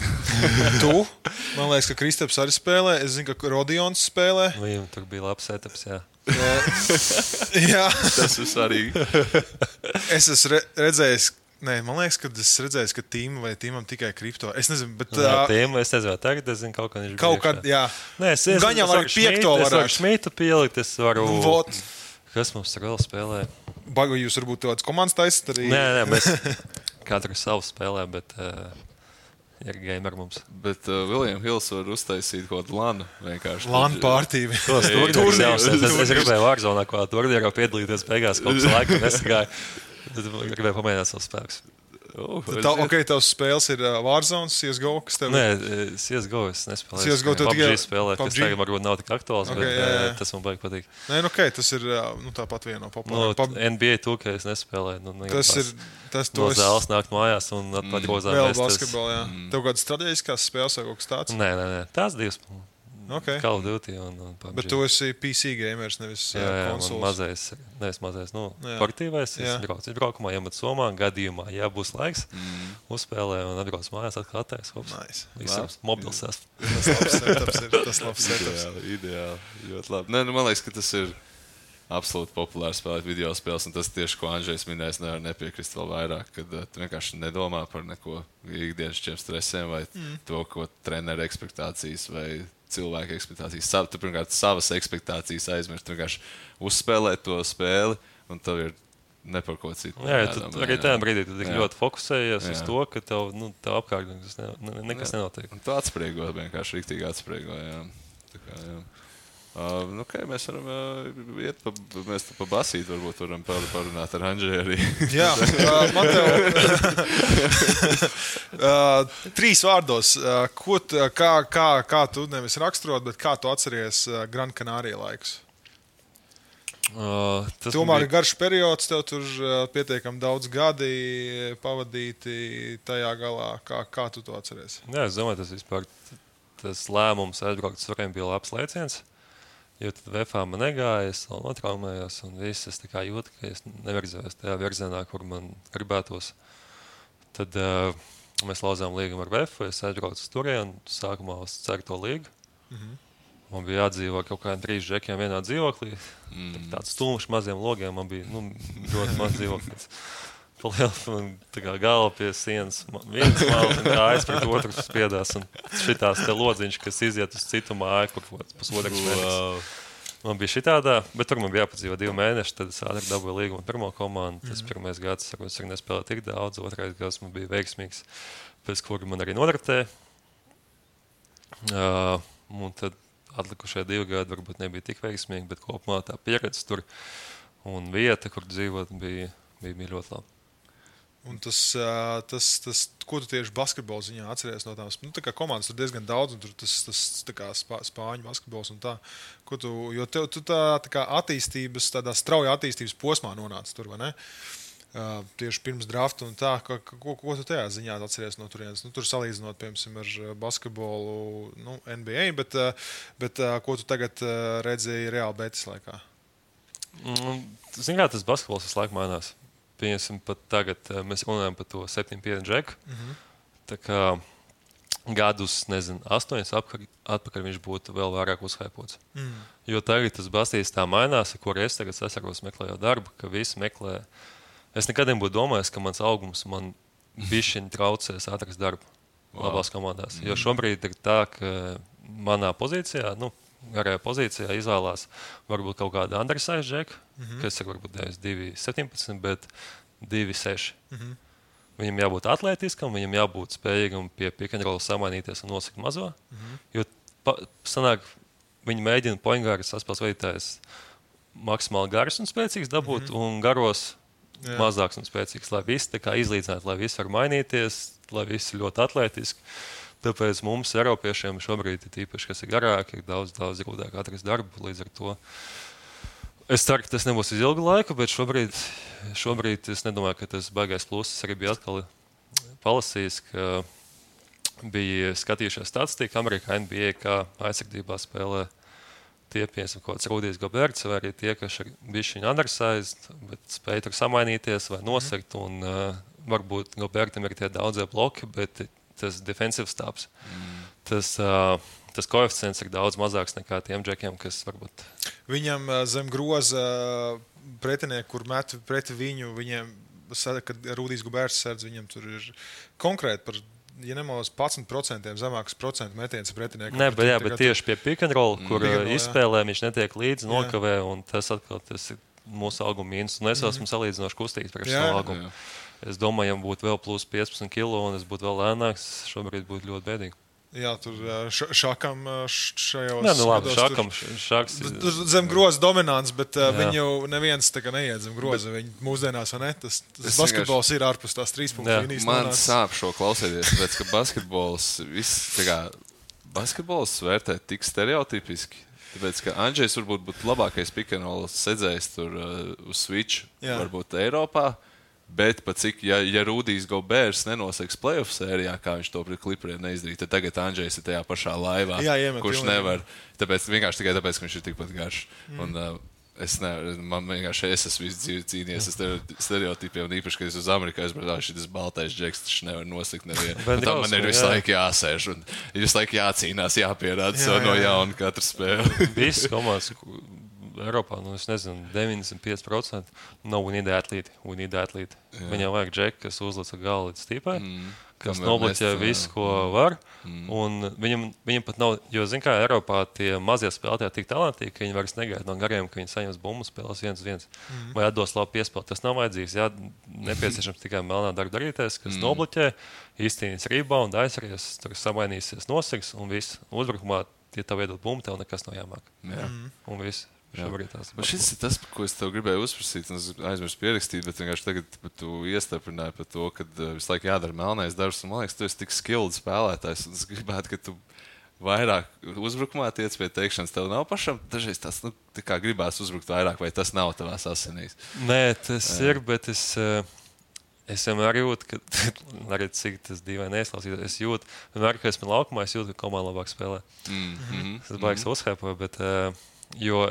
Speaker 2: Man liekas, ka Kristaps arī spēlē. Es zinu, ka Rodions spēlē.
Speaker 4: Viņam tur bija labs setups, jā.
Speaker 2: Jā.
Speaker 3: Tas ir svarīgi.
Speaker 2: Es esmu redzējis, man liekas, ka es redzēju, ka tīmam tikai kripto. Es nezinu, bet...
Speaker 4: Tīmu, es nezinu, tagad es zinu, kaut kā viņš bija.
Speaker 2: Kaut kad, jā.
Speaker 4: Nē,
Speaker 2: Gan jau arī piekto varētu.
Speaker 4: Es varu Šmītu pielikt, es varu... Kas mums vēl spēlē?
Speaker 2: Bagu jūs varbūt tāds komandas taisat arī?
Speaker 4: Nē, mēs katru savu spēlē, bet ir gamer mums.
Speaker 3: Bet William Hills var uztaisīt kaut kādu lanu vienkārši.
Speaker 2: Lanu pārtīvi.
Speaker 4: Es gribēju Warzonā kaut kādā turnīrā piedalīties beigās, kaut kas laika nesagāja. Es gribēju pamēģināt savus spēkus.
Speaker 2: Tavs spēles ir Warzone, CSGO, kas tev ir?
Speaker 4: Nē, CSGO es nespēlēju.
Speaker 2: CSGO tev tikai
Speaker 4: spēlēt, kas tagad varbūt nav tik aktuāls, bet tas man baigi patīk.
Speaker 2: Nē, tas ir tāpat viena no populārām.
Speaker 4: NBA 2K es nespēlēju.
Speaker 2: Tas
Speaker 4: no zāles nākt mājās un atgrozām.
Speaker 2: Vēl basketbolu, jā. Tev kādas strateģiskās spēles vai kaut kas tāds?
Speaker 4: Nē. Tās divas. Call of Duty un PUBG.
Speaker 2: Bet tu esi PC gamers, nevis konsoles.
Speaker 4: Nevis mazais. Portīvais. Es braukumā iemet somā, gadījumā, ja būs laiks, uzspēlē un atbrauc mājās, atkal attēs. Nice. Mobils esmu.
Speaker 2: Tas labs setups.
Speaker 3: Ideāli. Ļoti labi. Man liekas, ka tas ir absolūti populāri spēlēt video spēles, un tas tieši, ko Andžejs minējis, nevar nepiekrist vēl vairāk, kad tu vienkārši nedomā par neko ikdienas stresiem vai to, ko treneru ekspektācijas vai cilvēku ekspektācijas. Tu pirmkārt savas ekspektācijas aizmirst, tu vienkārši uzspēlēt to spēli, un tev ir ne par ko citu.
Speaker 4: Jā, arī tajā brīdī tu ļoti fokusējies uz to, ka tev apkārt nekas nenotiek.
Speaker 3: Un tu atspriego, vienkārši riktīgi atspriego, jā. Tā kā, jā. Mēs varam iet mēs pa basīt, varbūt varam parunāt ar Andžeju arī.
Speaker 2: Jā, man tev 3 vārdos. Kā tu nevis raksturot, bet kā tu atceries Gran Canaria laikus? Tomēr ir garš periods, tev tur pietiekami daudz gadi pavadīti tajā galā. Kā tu to atceries?
Speaker 4: Jā, es domāju, tas lēmums aizbraukt suriem bija labs lēciens. Jo tad VFā man negāja, es vēl notraumējos, un viss es tā kā jūtu, ka es nevirzējos tajā virzienā, kur man gribētos. Tad mēs lauzām līgumu ar VFU, es aizbraucu uz turieni, sākumā uz 4. līgu. Man bija jādzīvo kaut kādiem 3 džekiem vienā dzīvoklī. Tāds stulmšs maziem logiem, man bija ļoti maz dzīvoklis. Tā kā galva pie sienas, viens malas un kājas pret otru spiedās. Un šitās te lodziņš, kas iziet uz citu māju, kur pusotrs mēnesis. Man bija šitādā, bet tur man bija jāpadzīvo 2 mēneši, tad es ātri dabūju līgumu pirmo komandu. Tas pirmais gads, es arī nespēlēju tik daudz, otrais gads man bija veiksmīgs, pēc kura man arī nodraftēja. Un tad atlikušie 2 gadi varbūt nebija tik veiksmīgi, bet kopumā tā pieredze tur un vieta, kur dzīvot, bija ļoti laba.
Speaker 2: Un tas, ko tu tieši basketbola ziņā atceries no tām? Tā kā komandas tur diezgan daudz, un tur tas tā kā spāņu basketbols un tā. Jo tu tā kā attīstības, tādā strauja attīstības posmā nonāci tur, vai ne? Tieši pirms drafta un tā. Ko tu tajā ziņā atceries no turienes? Tur salīdzinot, piemēram, ar basketbolu NBA, bet ko tu tagad redzēji reāli betis laikā?
Speaker 4: Zini kā, tas basketbols visu laiku mainās. Pieņemsim, pat tagad mēs runājam par to 7-5 džeku. Tā kā gadus, 8 atpakaļ viņš būtu vēl vairāk uzhaipots. Jo tagad tas bastīs tā mainās, ar kur es tagad sasaros meklējot darbu, ka visi meklē. Es nekad nebūtu domājis, ka mans augums man bišķiņ traucēs atrast darbu labās komandās. Jo šobrīd ir tā, ka manā pozīcijā, garajā pozīcijā izvēlās varbūt kaut kādu undersize džeku, kas ir varbūt 2,17, bet 2,6. Viņam jābūt atlētiskam, viņam jābūt spējīgam pie pick and roll samainīties un nosakt mazo. Jo sanāk, viņi mēģina pointgāras saspēles veidotājs maksimāli garas un spēcīgs dabūt un garos mazāks un spēcīgs, lai visi tā kā izlīdzinātu, lai visi var mainīties, lai visi ir ļoti atlētiski. Tāpēc mums, Eiropiešiem, šobrīd ir īpaši, kas ir garāki, ir daudz grūtāk atrast darbu. Līdz ar to es ceru, ka tas nebūs uz ilgu laiku, bet šobrīd es nedomāju, ka tas baigais pluss. Es arī biju atkal palasījis, ka bija skatījušies statistiku Amerikā NBA, kā aizsardzībā spēlē tie, piemēram, kaut kāds Rudijs Goberts, vai arī tie, kas ir bijuši undersized, bet spēj tur samainīties vai nosegt. Un varbūt Gobertam ir tie daudzie bloki, bet tas defensive stāps. Tas koeficients ir daudz mazāks nekā tiem džekiem, kas varbūt.
Speaker 2: Viņam zem groza pretinieki, kur met pret viņu, viņiem, kad Rudijs Goberts sēdz, viņam tur ir konkrēti par. Ja nemaldos 11% zemāks procentu metiens pretiniekam.
Speaker 4: Nē, bet tieši pie pick and roll, kur izspēlē viņš netiek līdzi, nokavē, un tas atkal tas ir mūsu auguma mīnus. Un es esmu salīdzinoši kustīgs priekš savu augumu. Es domāju, ja būtu vēl plus 15 kilo un es būtu vēl lēnāks, šobrīd būtu ļoti bēdīgi.
Speaker 2: Jā, tur šakam šajos...
Speaker 4: Nē, nu labi, šaks...
Speaker 2: Zem groza dominants, bet viņu neviens tā kā neiet zem groza. Viņi mūsdienās, vai ne? Tas basketbols ir ārpus tās 3 punktu līnijas.
Speaker 3: Man sāp šo klausēties, tāpēc, ka basketbols vērtē tik stereotipiski. Tāpēc, ka Andžejs varbūt būtu labākais pick and roll sedzējs tur uz Switch, varbūt Eiropā. Bet pat cik, ja Rudijs Goberts nenoseks playoff sērijā, kā viņš to pret Clipperiem neizdarīja, tad tagad Andžejs ir tajā pašā laivā, kurš nevar. Tāpēc, tikai tāpēc, ka viņš ir tikpat garš. Un man vienkārši es esmu visu dzīvi cīnījies ar stereotipiem, un īpaši, kad es uz Ameriku aizbraucu, šis baltais džeks, tačs nevar nosekt nevienu. Tam man ir visu laiku jāsēž, un ir visu laiku jācīnās, jāpierāda sev no jauna katru spēli.
Speaker 4: Visas komandas Eiropā, es nezinu, 95% nav we need athlete. Viņam vajag džeku, kas uzlica galu līdz stīpai, kas nobloķē visu, ko var. Un viņam pat nav, jo, zin kā, Eiropā tie mazie spēlētāji tik talantīgi, ka viņi vairs negaida no gariem, ka viņi saņems bumbu spēles 1-1. Vai atdos labu piespēli. Tas nav vajadzīgs. Jā, nepieciešams tikai melnā darba darīties, kas nobloķē, īstenīs rebound, aizsaries, tur samainīsies nosegs un viss. Uzbrukumā, ja tev iedod bumbu, tev nekas nav jāmāk. Un viss.
Speaker 3: Šis ir tas, ko es tev gribēju uzprasīt, un es aizmirsu pierakstīt, bet vienkārši tagad tu iestaprināji par to, ka visu laiku jādara melnais darbs, un man liekas, tu esi tik skilled spēlētājs, un es gribētu, ka tu vairāk uzbrukumā tiec pie teikšanas, tev nav pašam dažreiz tas, tā kā gribās uzbrukt vairāk, vai tas nav tavās asinīs?
Speaker 4: Nē, tas ir, bet es vienmēr jūtu, ka, arī cik tas dīvaini neizklausīt, es jūtu, vienmēr, ka esmu laukumā, es jūtu, ka komanda labāk spēlē. Tas baigs uzhēpoja, bet... Jo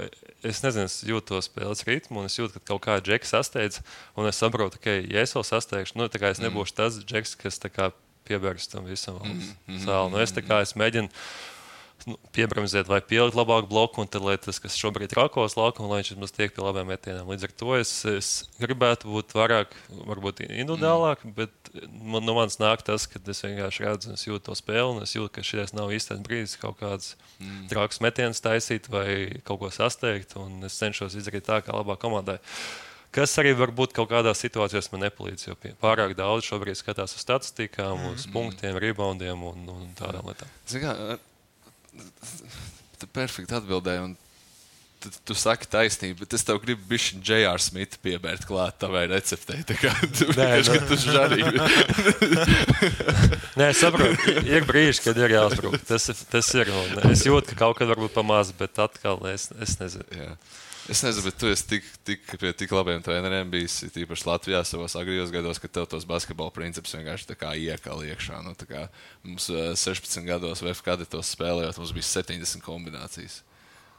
Speaker 4: es nezinu, es jūtu to spēles ritmu, un es jūtu, ka kaut kā džeks sasteidz, un es saprotu, ka, ja es vēl sasteigšu, tā kā es nebūšu tas džeks, kas tā kā piebērs tam visam sāli. Es tā kā es mēģinu piebramzēt vai pielikt labāku bloku, un tad, lai tas, kas šobrīd ir rakos laukumu, lai viņš tiek pie labiem metieniem. Līdz ar to es gribētu būt vairāk, varbūt individuālāk, bet no manis nāk tas, ka es vienkārši redzu, es jūtu to spēli, un es jūtu, ka šies nav īstais brīdis kaut kāds trāks metiens taisīt vai kaut ko sasteigt, un es cenšos izdarīt tā, kā labā komandai. Kas arī varbūt kaut kādās situācijās man nepalīdz, jo pārāk daudz šobrīd skatās uz statistikām, uz punktiem, reboundiem un tādām lietām.
Speaker 3: Tu perfekti atbildēji, un tu saki taisnību, bet es tev gribu bišķi J.R. Smithu piebērt klāt tavai receptei. Tā kā tu vienkārši, ka tu žarīgi.
Speaker 4: Nē, es saprotu, ir brīži, kad ir jāuzbruk. Tas ir, un es jūtu, ka kaut kad varbūt pamaz, bet atkal es nezinu.
Speaker 3: Jā. Es nezinu, bet tu esi pie tik labiem treneriem bijis, tīpaši Latvijā savos agrijos gados, ka tev tos basketbola principus vienkārši tā kā iekal iekšā. Tā kā mums 16 gados VF kadetos spēlējot, mums bija 70 kombinācijas.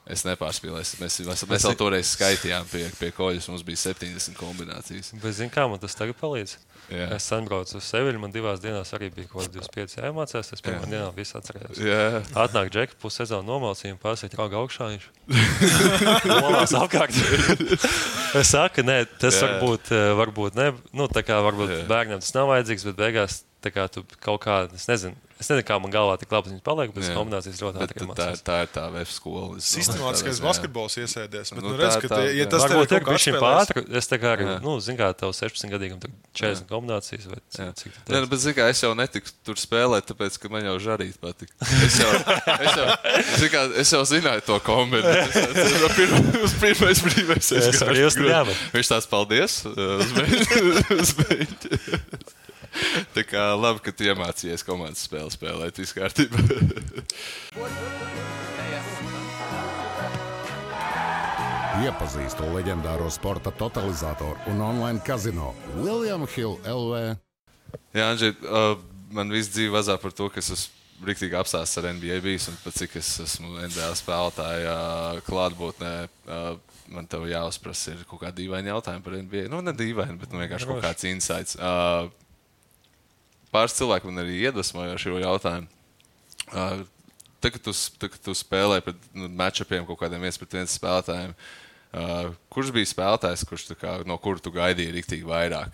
Speaker 3: Es nepārspīlēju. Mēs vēl toreiz skaitījām pie koļus, mums bija 70 kombinācijas.
Speaker 4: Bet zini, kā man tas tagad palīdz? Jā. Es sanbraucu uz Seviļu, man 2 dienās arī bija kaut 25 jāiemācās, es pirmā dienā visu atcerējos. Jā. Atnāk džeki, pussezonu nomalcīja un pārsīt rauga augšā, viņš molās apkārt. Es saku, nē, tas varbūt ne, tā kā varbūt bērniem tas nav vajadzīgs, bet beigās tā kā tu kaut kā, es nezinu, kā man galvā tik labi viņas paliek, bet kombinācijas ļoti ātri mācās.
Speaker 3: Tā ir tā VF skola.
Speaker 2: Sistemātiskais basketbols iesēdies. Bet,
Speaker 3: redz,
Speaker 2: ka ja tas tev
Speaker 4: ir kaut kā pātri, es tā kā arī, zin kā, tev 16-gadīgam 40 kombinācijas vai cik tu
Speaker 3: bet zin kā, es jau netiku tur spēlēt, tāpēc, ka man jau žarīt patika. Es jau zināju to kombināciju. Pirmais brīvais. Viņš tās paldies uz beļķi. Tā kā labi, ka tu iemācījies komandas spēli spēlēt, viss kārtībā.
Speaker 1: Iepazīstu leģendāro sporta totalizatoru un online kazino William Hill LV.
Speaker 3: Jā, Andži, man viss dzīve vazā par to, ka es esmu riktīgi apstāsts ar NBA bijis un pat cik es esmu NBA spēlētāja klātbūtnē. Man tev jāuzprasa ir kaut kā dīvaini jautājumi par NBA. Nu, ne dīvaini, bet vienkārši kaut kāds insights. Pāris cilvēki man arī iedvesmoja šo jautājumu. Tagad tu spēlē pret matchupiem kaut kādiem 1-1 spēlētājiem. Kurš bija spēlētājs, no kura tu gaidīji riktīgi vairāk?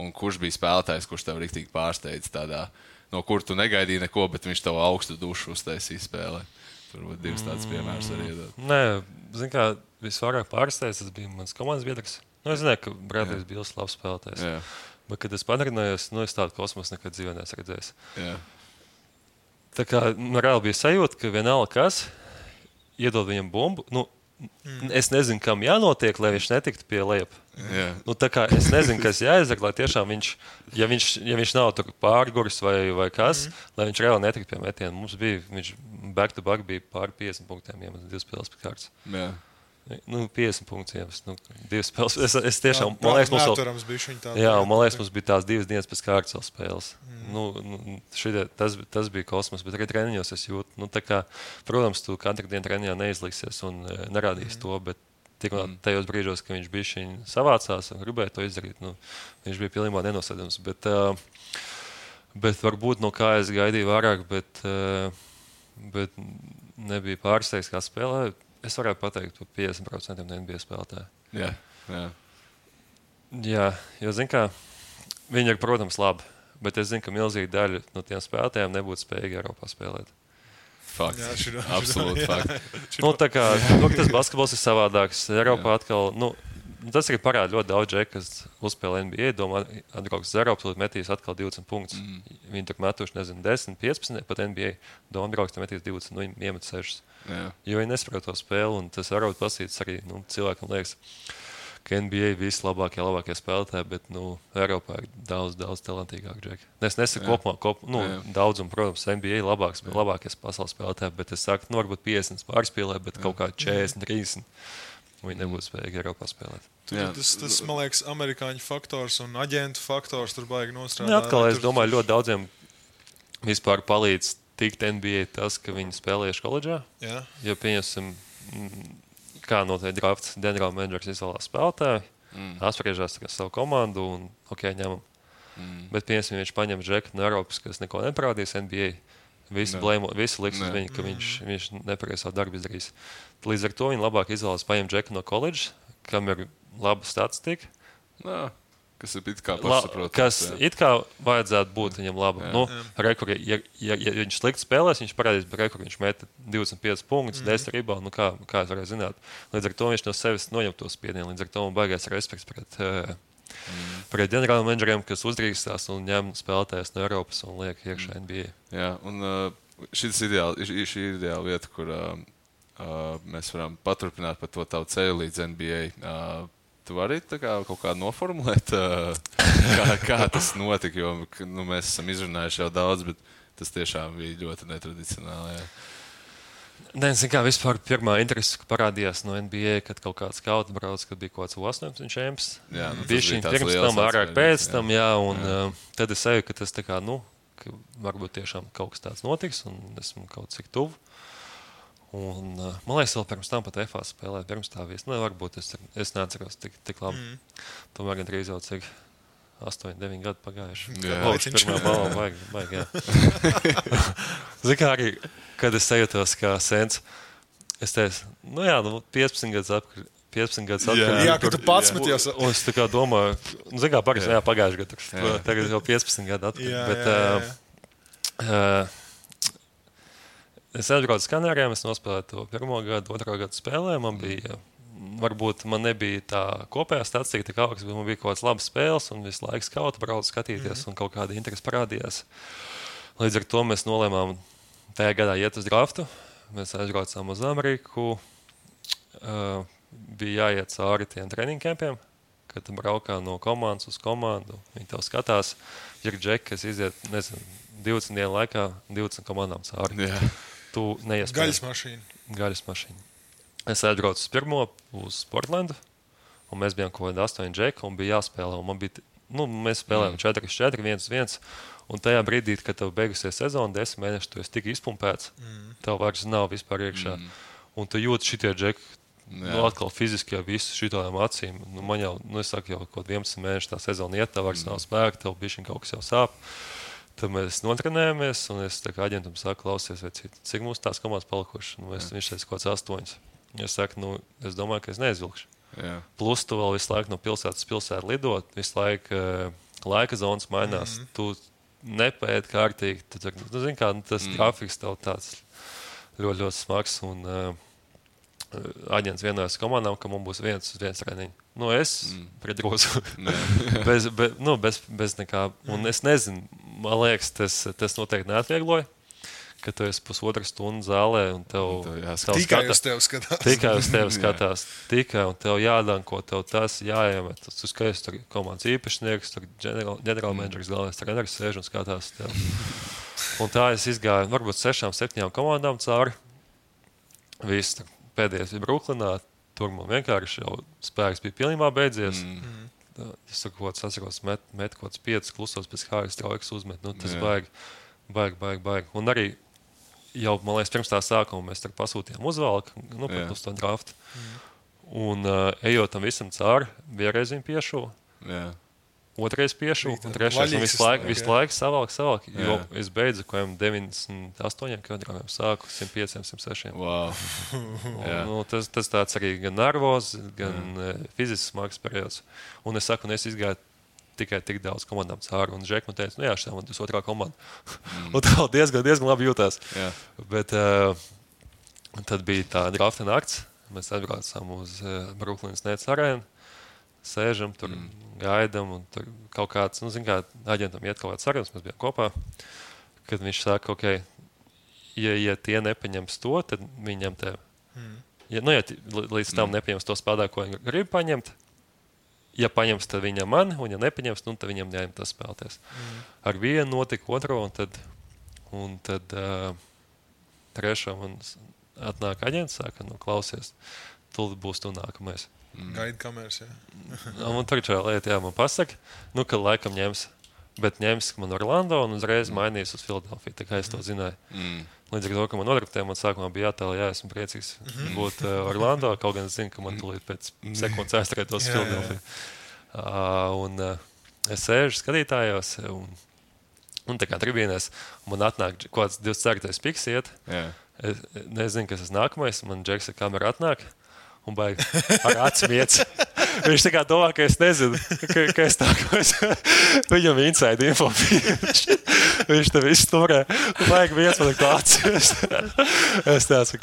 Speaker 3: Un kurš bija spēlētājs, kurš tev riktīgi pārsteidz tādā, no kura tu negaidīji neko, bet viņš tev augstu dušu uztaisīja spēlē? Turbūt divas tādas piemērs arī iedot.
Speaker 4: Nē, zin kā, visvairāk pārsteidz, tas bija mans komandas biedrs. Nu, es zināju, ka Bradley's bija labs spēlētājs.
Speaker 3: Jā.
Speaker 4: Bet, kad es padarījos, es tādu kosmosu nekad dzīvē neesmu redzējis.
Speaker 3: Jā.
Speaker 4: Tā kā reāli bija sajūta, ka vienalga kas iedod viņam bumbu. Es nezinu, kam jānotiek, lai viņš netiktu pie lejup. Tā kā es nezinu, kas jāizdara, lai tiešām viņš, ja viņš nav tur pārguris vai kas, lai viņš reāli netiktu pie metiena. Mums bija, viņš back-to-back bija pāri 50 punktiem, ja 2 spēles pēc kārtas.
Speaker 3: Jā.
Speaker 4: 50 punktus, 2 spēles. Es tiešām, man liekas, mums bija tās 2 dienas pēc kārtas spēles. Tas bija kosmos, bet arī treniņos es jūtu. Tā kā, protams, tu katru dienu treniņā neizliksies un nerādīsi to, bet tajos brīžos, kad viņš bija savācās un gribēja to izdarīt, viņš bija pilnībā nenosēdams. Bet varbūt, kā es gaidīju vairāk, bet nebija pārsteigts, kā spēlē. Es varētu pateikt par 50% no NBA spēlētāju. Jā, jo, zin kā, viņi ir, protams, labi, bet es zinu, ka milzīga daļa no tiem spēlētājiem nebūtu spējīgi Eiropā spēlēt.
Speaker 3: Fakts. Absolūti fakts.
Speaker 4: Tā kā, tas basketbols ir savādāks. Eiropā atkal, tas arī parāda ļoti daudz džeku, kas uzspēlē NBA, domā, atbrauks uz Eiropu, metīs atkal 20 punktus. Viņi tur metuši, 10, 15, pat NBA. Domā, atbrauks, metīs 20, viņi iemet 6. Jo viņi nesaprot to spēli, un tas varbūt pasīts arī cilvēkam liekas, ka NBA labākie spēlētāji, bet Eiropā ir daudz talantīgāk džeki. Es nesaku kopumā, daudz, un, protams, NBA labākie pasaules spēlētāji, bet es saku, varbūt 50 pārspēlē, bet kaut kā 40, 30. Viņi nebūtu spējīgi Eiropā spēlēt.
Speaker 2: Tas, man liekas, amerikāņu faktors un aģentu faktors tur baigi nostrādāt.
Speaker 4: Atkal, es domāju, ļoti daudziem vispār palīdz tikt NBA tas, ka viņi spēlējuši koledžā. Ja pieņemsim, kā notiek drafts, ģenerāla menedžers izvēlās spēlētāju, apspriežās savu komandu un ņemam. Bet pieņemsim, viņš paņem džeku no Eiropas, kas neko neparādīs NBA. Visi liks uz viņu, ka viņš nepareiz savu darbu izdarīs. Līdz ar to viņi labāk izvēlas paņemt džeku no koledžas, kam ir laba statistika.
Speaker 3: Kas ir it kā pašsaprotams.
Speaker 4: Kas it kā vajadzētu būt viņam labi. Ja viņš slikti spēlēs, viņš parādīs, ka viņš meta 25 punktus, 10 reboundu, kā es varēju zināt. Līdz ar to viņš no sevis noņem to spiedienu. Līdz ar to man baigās respekts pret ģenerāla menedžeriem, kas uzdrīkstās un ņem spēlētājus no Eiropas un liek iekšā NBA.
Speaker 3: Jā, un šī ir ideāla vieta, kur mēs varam paturpināt par to tavu ceļu līdz NBA. Tu vari kaut kā noformulēt, kā tas notika, jo mēs esam izrunājuši jau daudz, bet tas tiešām bija ļoti netradicionāli. Jā.
Speaker 4: Kā vispār pirmā interese parādījās no NBA, kad kaut kāds skauts brauc, kad bija kaut kāds 18 čemps. Bija šī pirms tam, vairāk pēc tam, tad es eju, ka tas ka varbūt tiešām kaut kas tāds notiks, un esmu kaut cik tuvu. Un, man liekas, vēl pirms tam pat FA spēlēja, pirms tā vies. Varbūt es neatceros tik labi. Tomēr gan drīz jau cik 8, 9 gadi pagājuši. Pirmā balva vajag, jā. Zin kā arī, kad es sajūtos kā sens, es teicu, 15 gadus 15 gadus atpakaļ.
Speaker 2: Jā, kad tu pats meties.
Speaker 4: Un es tā kā domāju, pagājušajā gadā, tagad jau 15 gadu atpakaļ. Es aizbraucu uz Kanārijām, es nospēlēju to 1. gadu, 2. gadu spēlē. Man bija, varbūt man nebija tā kopējā statistika, tā augsts, bet man bija kaut kāds labs spēles un visu laiku skautu braucu skatīties un kaut kāda interesi parādījās. Līdz ar to mēs nolēmām tajā gadā iet uz draftu. Mēs aizbraucām uz Ameriku. Bija jāiet cauri tiem treniņu kempiem, kad tu braukā no komandas uz komandu. Viņi tev skatās, ir džeki, kas iziet, 20 dienu laikā 20 komandām cauri.
Speaker 3: Jā.
Speaker 2: Tu neiespēji. Gaļas mašīna.
Speaker 4: Es aizbraucu uz pirmo, uz Portlandu, un mēs bijām kaut kādi 8 džeki, un bija jāspēlē. Un mēs spēlējām 4-4, 1-1. Un tajā brīdī, kad tev beigusies sezona, 10 mēneši, tu esi tik izpumpēts, tev vairs nav vispār iekšā. Un tu jūti šitie džeki, atkal fiziski jau visu šitām acīm. Man jau, es saku, jau kaut 11 mēneši tā sezona iet, tev vairs nav spēka, tev bišķiņ kaut kas jau sāp. Tad mēs notrenējamies, un es tā kā aģentam saku, klausies, cik mums tās komandas palikuši. Viņš teica kaut kāds 8. Es saku, es domāju, ka es neizvilkšu.
Speaker 3: Jā.
Speaker 4: Plus tu vēl visu laiku no pilsētas pilsētu lidot, visu laiku laika zonas mainās. Tu nepēdi kārtīgi. Zini, kā tas grafiks tev tāds ļoti, ļoti smags. Un aģents vienojas komandām, ka mums būs viens treniņš. Es pret grozu. bez nekā. Un es nezinu, man liekas, tas noteikti neatviegloja, ka tu esi pusotru stundu zālē un tev
Speaker 2: tikai uz tevi skatās.
Speaker 4: Tikai uz tevi skatās. Tikai un tev jādanko, tev tas jāiemet. Tu skaties, tur komandas īpašnieks, tur ģenerālmenedžers, galvenais treneris sēž un skatās tev. Un tā es izgāju varbūt 6-7 komandām cauri. Viss pēdējais bija Bruklinā. Tur man vienkārši jau spēks bija pilnībā beidzies. Es tur kaut kāds atceros, met kaut kāds 5 klusos pēc kājas traujas uzmet. Tas baigi. Un arī jau, man liekas, pirms tā sākuma mēs tur pasūtījām uzvalku, uz to draftu. Un ejot tam visam cauri, vienreiz viņu piešu, otrais piešu, un trešais visu laiku savalk. Jo es beidzu kaut 98 kilogramiem, sāku 105, 106.
Speaker 3: Wow.
Speaker 4: Tas tāds arī gan nervos, gan fizisks smags periods. Un es saku, es izgāju tikai tik daudz komandām cauri. Un Žek man teica, šī man 2. komanda. Un tā diezgan labi jūtās. Bet tad bija tā drafta nakts. Mēs atbraucām uz Brooklynas Nets arēnu. Sēžam, tur gaidam. Un tur kaut kāds, aģentam iet kaut kāds sarunas, mēs bijām kopā. Kad viņš saka, ja tie nepaņems to, tad viņam tev. Ja līdz tam nepaņems to spēlētāju, ko viņi grib paņemt, ja paņems, tad viņam mani, un ja nepaņems, tad viņam jāņem tas spēlēties. Ar vienu notika otro, un tad trešo man atnāk aģents, saka, klausies, tu būs tu nākamais.
Speaker 2: Gaida kameras, jā.
Speaker 4: Un tur čā lieta, man pasaka, ka laikam ņems, bet ņems man Orlando un uzreiz mainīs uz Filadelfiju, tā kā es to zināju. Līdz ar to, ka man nodraftēja, man sākumā bija jātēl, esmu priecīgs būt Orlando, kaut gan es zinu, ka man tūlīt pēc sekundes aizturētos Filadelfiju. Un es sēžu skatītājos, un tā kā tribīnēs, man atnāk kaut kāds 24. piks iet. Es nezinu, kas tas nākamais, man Džeksa kamera atnāk, un baigi ar atsmiec. Viņš tā kā domā, ka es nezinu, ka es nākamais. Viņam inside info. Viņš te visu turē. Vajag viens man klācies. Es tāds,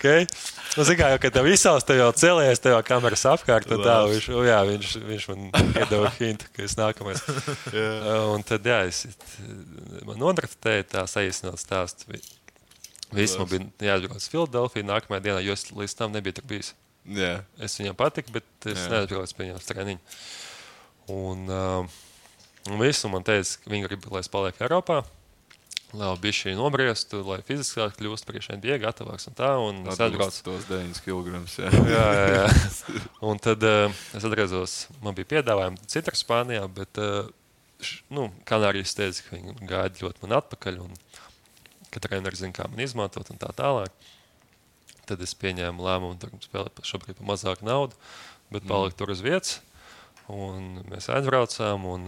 Speaker 4: Zikā, jau, kad tev izsauc, tev jau celies, tev jau kameras apkārt, tad tā, viņš man iedeva hintu, ka es nākamais. Un tad, man nodraftēja tā saīsināt stāstu. Viss man bija jāatbrauc uz Filadelfiju nākamajā dienā, jo es līdz tam nebija tur bijis. Es viņam patiku, bet es neatbraucu pie viņam treniņu. Un visu man teica, ka viņi grib, lai es palieku Eiropā, lai bišķi nobriestu, lai fiziskāk kļūst priekš NBA gatavāks un tā. Un es atbraucu
Speaker 3: tos 9 kilograms,
Speaker 4: jā. Un tad es atgriezos, man bija piedāvājumi citur Spānijā, bet Kanārijas teica, ka viņi gaida ļoti man atpakaļ un ka treneri zina, kā man izmantot un tā tālāk. Tad es pieņēmu lēmumu, tur spēlēt šobrīd par mazāku naudu, bet paliku tur uz vietas. Un mēs aizbraucām un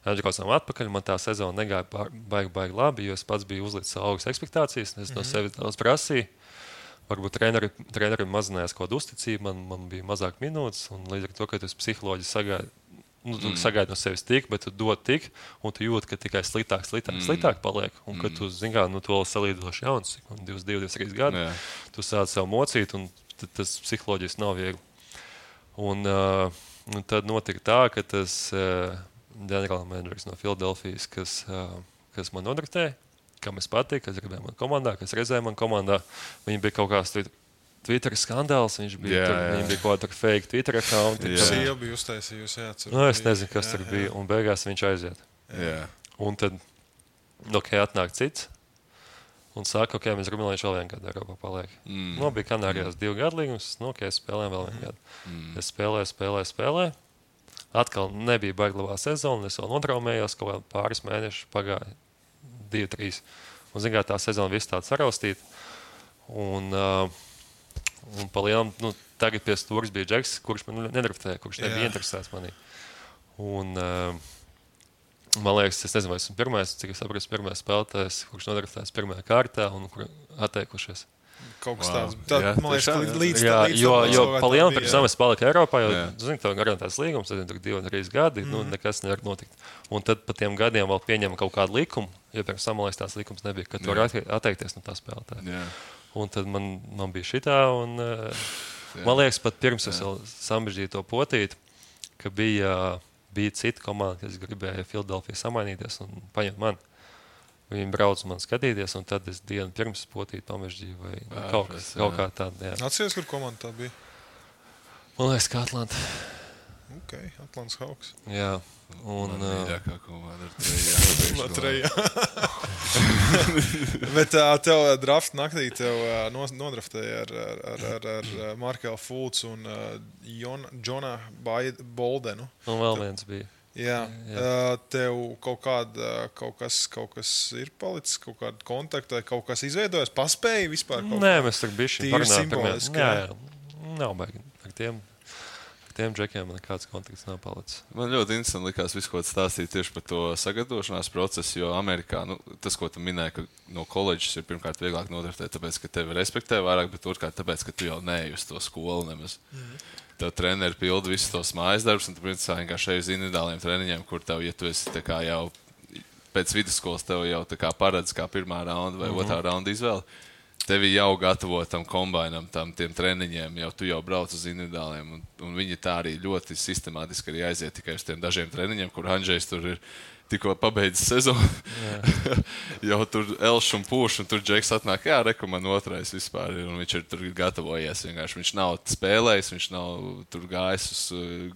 Speaker 4: aizbraucām atpakaļ. Man tā sezona negāja baigi labi, jo es pats biju uzlicis augstas ekspektācijas. Es no sevis daudz prasīju. varbūt trenerim mazinājās kaut kāda uzticība, man bija mazāk minūtes, un līdz ar to, ka tu psiholoģiski sagaidi no sevis tik, bet tu dod tik, un tu jūti, ka tikai sliktāk paliek. Un, kad tu, zini kā, tu vēl salīdzinoši jauns, 22, 23 gadi, tu sāc sev mocīt, un tas psiholoģiski nav viegli. Un tad notika tā, ka tas ģenerālmenedžers no Filadelfijas, kas man nodraftēja, kam es patiku, kas gribēja man komandā, kas redzēja man komandā, viņi bija kaut kāds Twitter skandāls, viņš bija bija kaut kāda fake Twitter account.
Speaker 2: Sieva bija uztaisījusi,
Speaker 4: es nezinu, kas tur bija, un beigās viņš aiziet. Un tad, atnāk cits, un saka, mēs gribam, lai viņš vēl vienu gadu Eiropā paliek. Bija Kanārijās 2 gadu līgums, es spēlēju vēl vienu gadu. Es spēlēju. Atkal nebija baigi labā sezona, es vēl notraumējos, kaut kā pāris mēnešus pagāja 2, 3. Un, zin kā, tā sezona viss tāda saraustīta. Un pa lielam, tagad pie stūras bija Džeks, kurš man nedraftēja, kurš nebija interesēts manī. Un, man liekas, es nezinu, vai esmu pirmais, cik es saprotu, pirmais spēlētājs, kurš nodraftēts pirmajā kārtā un kur atteikušies.
Speaker 2: Kaut kas tāds. Man liekas, līdz
Speaker 4: jo pa lielam pirms tam es paliku Eiropā, jo, zini, tev garantēts līgums, tad tur 2 un 3 gadi, nekas nevar notikt. Un tad pa tiem gadiem vēl pieņem kaut kādu likumu, jo pirms tam, man liekas, tās likums nebija, ka tu var atteikties no tā spēlētāja. Un tad man bija šitā, un man liekas, pat pirms es vēl sambežģīju to potīti, ka bija cita komanda, kas gribēja Filadelfiju samainīties un paņemt mani. Viņi brauc man skatīties, un tad es dienu pirms potīti pamežģīju vai kaut kā tāda.
Speaker 2: Atceries, kur komanda tā bija?
Speaker 4: Man liekas, ka Atlanta.
Speaker 2: Ok, Atlantas Hawks.
Speaker 4: Jā. Un
Speaker 3: mīļākā komanda ar trejā.
Speaker 2: Bet tev draft naktī nodraftēja ar Markelu Fultz un Džona Boldenu.
Speaker 4: Un vēl viens bija.
Speaker 2: Jā. Tev kaut kas ir palicis, kaut kāda kontakta, kaut kas izveidojas, paspēja vispār?
Speaker 4: Nē, mēs tur bišķi
Speaker 2: parunājam.
Speaker 4: Jā, nav baigi. Ar tiem džekiem man nekāds kontakts nav palicis.
Speaker 3: Man ļoti interesanti likās visu, ko stāstīt tieši par to sagatavošanās procesu, jo Amerikā, tas, ko tu minēji, ka no koledžas ir pirmkārt vieglāk nodraftēt, tāpēc, ka tevi respektē vairāk, bet otrkārt tāpēc, ka tu jau neej uz to skolu nemaz. Tev treneri pilda visus tos mājas darbus, un tu principā vienkārši ej uz individuāliem treniņiem, kur tev, ja tu esi tā kā jau pēc vidusskolas, tev jau tā kā paredz kā pirmā raunda vai otrā raunda izvēle. Tevi jau gatavo tam kombainam, tiem treniņiem, tu jau brauc uz individuāliem, un viņi tā arī ļoti sistemātiski arī aiziet tikai uz tiem dažiem treniņiem, kur Andžejs tur ir tikko pabeidzis sezonu. Jau tur elš un pūš, un tur Džeks atnāk, man otrais vispār ir, un viņš ir tur gatavojies. Vienkārši viņš nav spēlējis, viņš nav tur gājis uz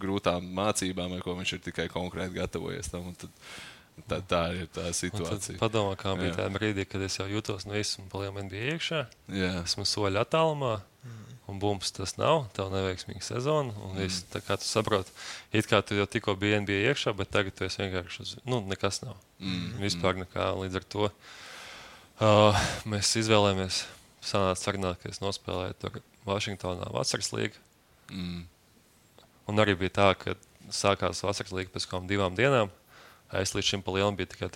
Speaker 3: grūtām mācībām, vai ko viņš ir tikai konkrēti gatavojies tam, un tad tā ir tā situācija.
Speaker 4: Padomā, kā bija tā brīdī, kad es jau jūtos no esmu palielam NBA iekšā. Esmu soļu attālumā, un bums tas nav, tev neveiksmīga sezona, un viss, tā kā tu saproti, it kā tu jau tikko biji NBA iekšā, bet tagad tu esi vienkārši, nekas nav. Vispār nekā, līdz ar to mēs izvēlējāmies sanāca sarunāt, ka es nospēlēju tur Vašingtonā vasaras līgu. Un arī bija tā, ka sākās vasaras līga pēc kādām 2 dienām. Es līdz šim pa lielam biju tikai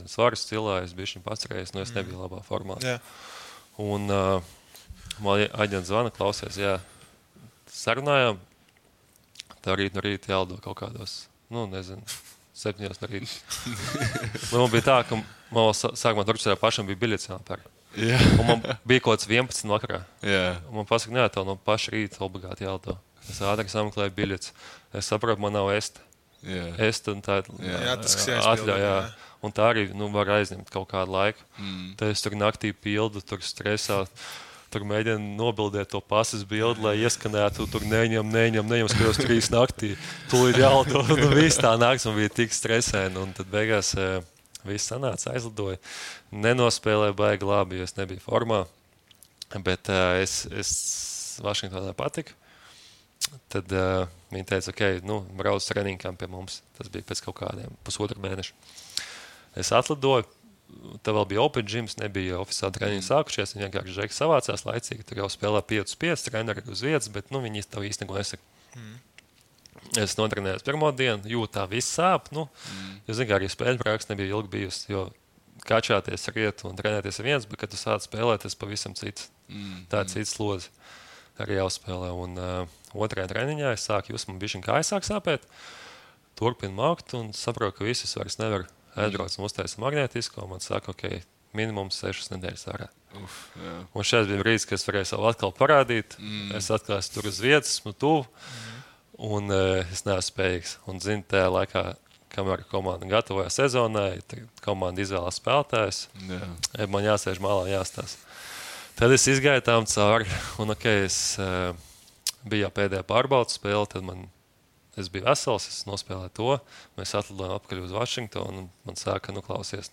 Speaker 4: svaras cilā, es biju šim pacerējis, es nebiju labā formā. Un man aģents zvana, klausies, sarunājām, tā rīt no rīta jālido kaut kādos, 7 no rīta. Man bija tā, ka man sākumā Turcijā pašam bija biļets jāpēr. Un man bija kaut kāds 11 vakarā. Un man pasaka, tev no paša rīta obligāti jālido. Es ātri sameklēju biļets. Es saprotu, man nav esta. Un tā atļauj, un tā arī var aizņemt kaut kādu laiku. Tad es tur naktī pildu, tur stresā, tur mēģinu nobildēt to pasas bildi, lai ieskanētu, tur neņem, skatos 3 naktī, tūlīt jālido, viss tā nakts un bija tik stresēni, un tad beigās viss sanāca, aizlidoja, nenospēlēja baigi labi, jo es nebiju formā, bet es Vašingtonā patiku. Tad viņi teica, brauc treniņkām pie mums. Tas bija pēc kaut kādiem 1,5 mēneša. Es atlidoju, tad vēl bija open gyms, nebija oficiāli treniņi sākušies. Viņi vienkārši Džeki savācās laicīgi, tur jau spēlē 5-5, treneri uz vietas, bet viņi tev īsti neko nesaka. Es notrenējos pirmo dienu, jūtu tā viss sāp. Jo, zin kā, arī spēļu praksa nebija ilgi bijusi, jo kačāties, riet un trenēties viens, bet, kad tu sāc spēlēt, tas pavisam cits. Tāds cits slodzi arī jāuzspēlē. Un otrajā treniņā es sāku just, man bišķiņ kājas sāk sāpēt, turpinu maukt un saprotu, ka visus vairs nevar aizbraukt un uztaisa magnētisko. Man saka, ok, minimums 6 nedēļas ārā. Un šeit bija brīdis, kad es varēju savu atkal parādīt. Es atkal esmu tur uz vietas, esmu tuvu, un es neesmu spējīgs. Un, zinu, tajā laikā, kamēr komanda gatavoja sezonai, komanda izvēlās spēlētājus, man jāsēž malā, jāstāsta. Tad es izgāju tām cauri, un es biju jau pēdējā pārbaudas spēle, tad es biju vesels, es nospēlēju to, mēs atlidojām apkaļ uz Vašingtonu, un man sāka, klausies,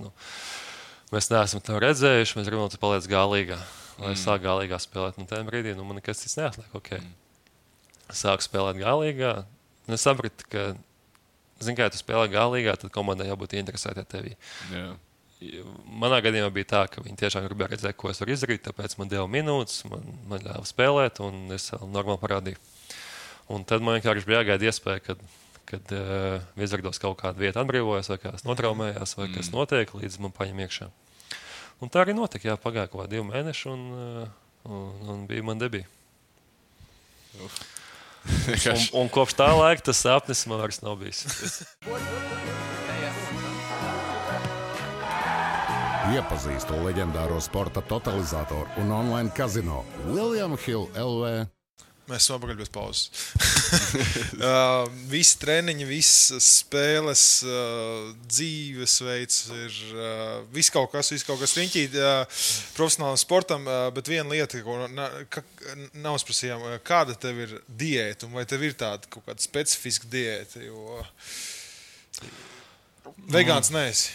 Speaker 4: mēs neesam tev redzējuši, mēs gribam, tu paliec galīgā. Lai es sāku galīgā spēlēt, tajā brīdī, man nekas cits neatliek, Sāku spēlēt galīgā, un es sapratu, ka, ja tu spēlē galīgā, tad komandai jābūt interesētā tevī. Manā gadījumā bija tā, ka viņi tiešām gribēja redzēt, ko es varu izdarīt, tāpēc man deva minūtes, man ļāva spēlēt, un es normāli parādīju. Un tad man vienkārši bija jāgaida iespēja, kad Vizardos kaut kāda vieta atbrīvojas, vai kāds notraumējās, vai kas notiek, līdz man paņem iekšā. Un tā arī notika, pagāja kaut kā 2 mēneši, un bija man debija. Un kopš tā laika tas sapnis man vairs nav bijis.
Speaker 1: Iepazīstu leģendāro sporta totalizatoru un online kazino William Hill LV.
Speaker 2: Mēs esam apakaļ bez pauzes. Visi treniņi, visas spēles, dzīvesveids ir viss kaut kas riņķī profesionālam sportam, bet viena lieta, ko nav sprasījām, kāda tev ir diēta, un vai tev ir tāda kaut kāda specifiska diēta, jo vegāns neesi.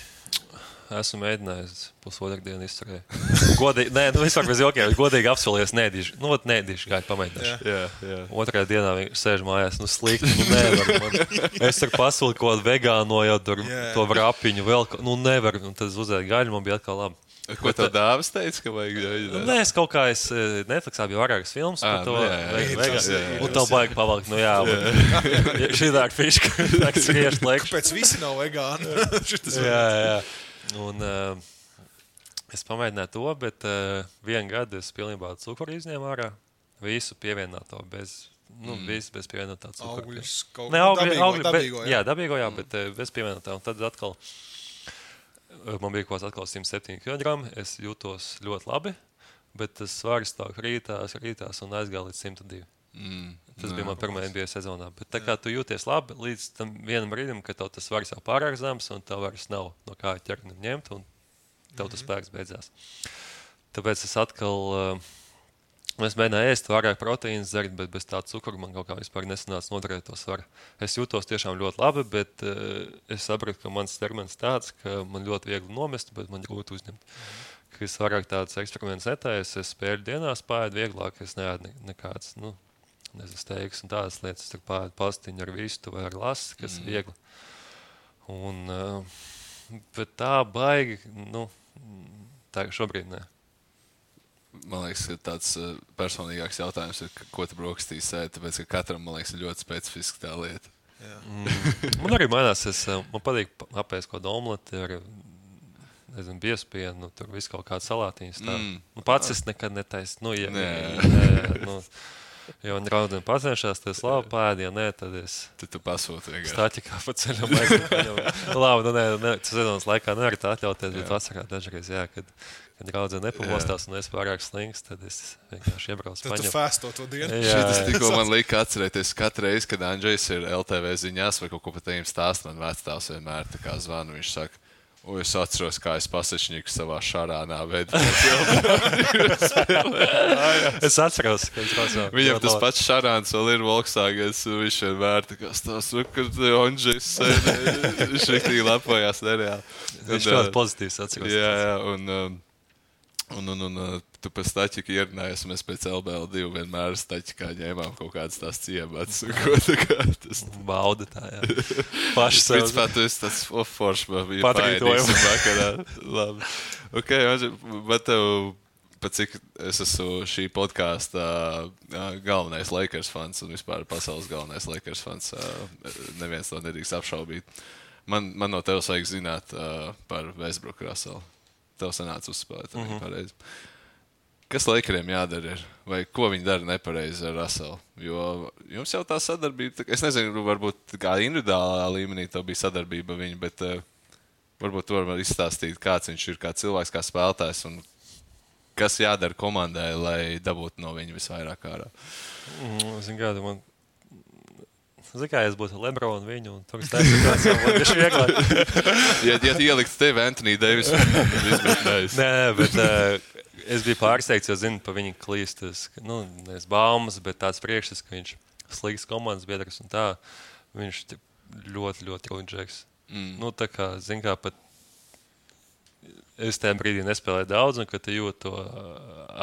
Speaker 4: Esmu mēģinājis pusotru dienu izturēt. Godīgi, vispār bez jokiem, godīgi apsolījos, nēdīšu. Nēdīšu, gāju pamēģināšu.
Speaker 3: Jā.
Speaker 4: Otrajā dienā viņš sēž mājās, slikti, nevar. Es tur pasūlu kaut kādu vegāno, jau tur to vrapiņu vēl, nevar. Un tad uzēju gaļu, man bija atkal labi.
Speaker 3: Ko tev dāvas teica, ka vajag?
Speaker 4: Nē, es kaut kā, Netflixā bija vairākas filmas par to vegānu. Un tev baigi pavalkt, šī tā ir fiška, tā ir skriešu laiku.
Speaker 2: Kāpēc visi nav vegāni?
Speaker 4: Jā. Un es pamēģināju to, bet vienu gadu es pilnībā cukuru izņēmu ārā. Visu pievienoto bez pievienotā cukura.
Speaker 2: Augļus,
Speaker 4: dabīgo, jā. Dabīgo, jā, bet bez pievienotā. Un tad atkal man bija kaut kāds 107 kg. Es jūtos ļoti labi, bet tas svars tā krītās un aizgāja līdz 102. Tas bija man pirmā NBA sezonā. Bet tā kā tu jūties labi līdz tam vienam brīdim, ka tev tas svars jau pārāk zems un tev vairs nav no kā ķerni ņemt un tev tas spēks beidzās. Tāpēc es atkal es mēģināju ēst vairāk proteīnas dzert, bet bez tā cukura man kaut kā vispār nesanāca noturēt to svaru. Es jūtos tiešām ļoti labi, bet es sapratu, ka mans ķermenis tāds, ka man ļoti viegli nomest, bet man grūti uzņemt. Ka es vairāk tāds eksperiments netaisu, es spēļu dienās pāēdu vieglāk, es neēdu nekāds, steigas un tādas lietas, tur pāēdu pastiņu ar vistu vai ar lasi, kas ir viegli. Un, bet tā baigi, tā šobrīd ne.
Speaker 3: Man liekas, ka tāds personīgāks jautājums ir, ko tu brokastīs ēd, tāpēc, ka katram, man liekas, ir ļoti specifiska tā lieta.
Speaker 4: Man arī mainās, man patīk apēst kaut kādu omleti ar, biespienu, tur visu kaut kādu salātiņas tā. Pats es nekad netaisu, jo viņi raudien pacenšās, tad es labi pēdu, ja nē, tad es
Speaker 3: tu pasūti vienkārši.
Speaker 4: Stāķikā pa ceļam aizgāju. Labi, sezonas laikā nevar tā atļauties, bet vasarā dažreiz, kad raudzē nepamostās un es pārāk slings, tad es vienkārši iebraucu paņem.
Speaker 2: Tad tu fēsto to dienu.
Speaker 3: Šitas tikko man lika atcerēties katru reizi, kad Andžejs ir LTV ziņās vai kaut ko par tiem stāst, man vectāvs vienmēr tā kā zvanu, viņš saka, es atceros, kā es pasečņīku savā šarānā veidā.
Speaker 4: Es atceros, ka es pasauju.
Speaker 3: Viņam tas pats šarāns vēl ir Volkswagens, viņš vienmēr tā kā stāsta, ka Andžejs viņš riktīgi lepojās nereāli.
Speaker 4: Viņš ļoti pozitīvs atceros.
Speaker 3: Jā, un tu pēc Staķika ierunājies, mēs pēc LBL2 vienmēr Staķikā ņēmām kaut kādas tās ciemats. Tas
Speaker 4: bauda tā, jā. Paši sev.
Speaker 3: Principā, tu esi tāds foršs, bija
Speaker 4: paēdīsim
Speaker 3: vakarā. Labi. Ok, bet tev, pat cik es esmu šī podkāsta galvenais Lakers fans un vispār pasaules galvenais Lakers fans, neviens to nedrīkst apšaubīt. Man no tevis vajag zināt par Westbrook Russellu. tev sanāca uzspēlēt. Pareizi. Kas Lakeriem jādara ir? Vai ko viņi dara nepareizi ar Russellu? Jo jums jau tā sadarbība, es nezinu, varbūt kā individuālā līmenī tā bija sadarbība viņa, bet varbūt tu vari izstāstīt, kāds viņš ir, kā cilvēks, kā spēlētājs un kas jādara komandai, lai dabūtu no viņa visvairāk ārā.
Speaker 4: Zinu, kā es būtu Lebronu viņu, un tur stāstīt, tas ir vieglāk.
Speaker 3: Ja ielikt tevi Anthony Davis, izmetnējis.
Speaker 4: Nē, bet es biju pārsteigts, jo zinu pa viņu klīstas, nevis baumas, bet tāds priekšstats, ka viņš slikts komandas biedrs un tā, viņš ļoti, ļoti rūģēks. Tā kā, zinu, kā pat es tajā brīdī nespēlēju daudz, un kad tu jūti to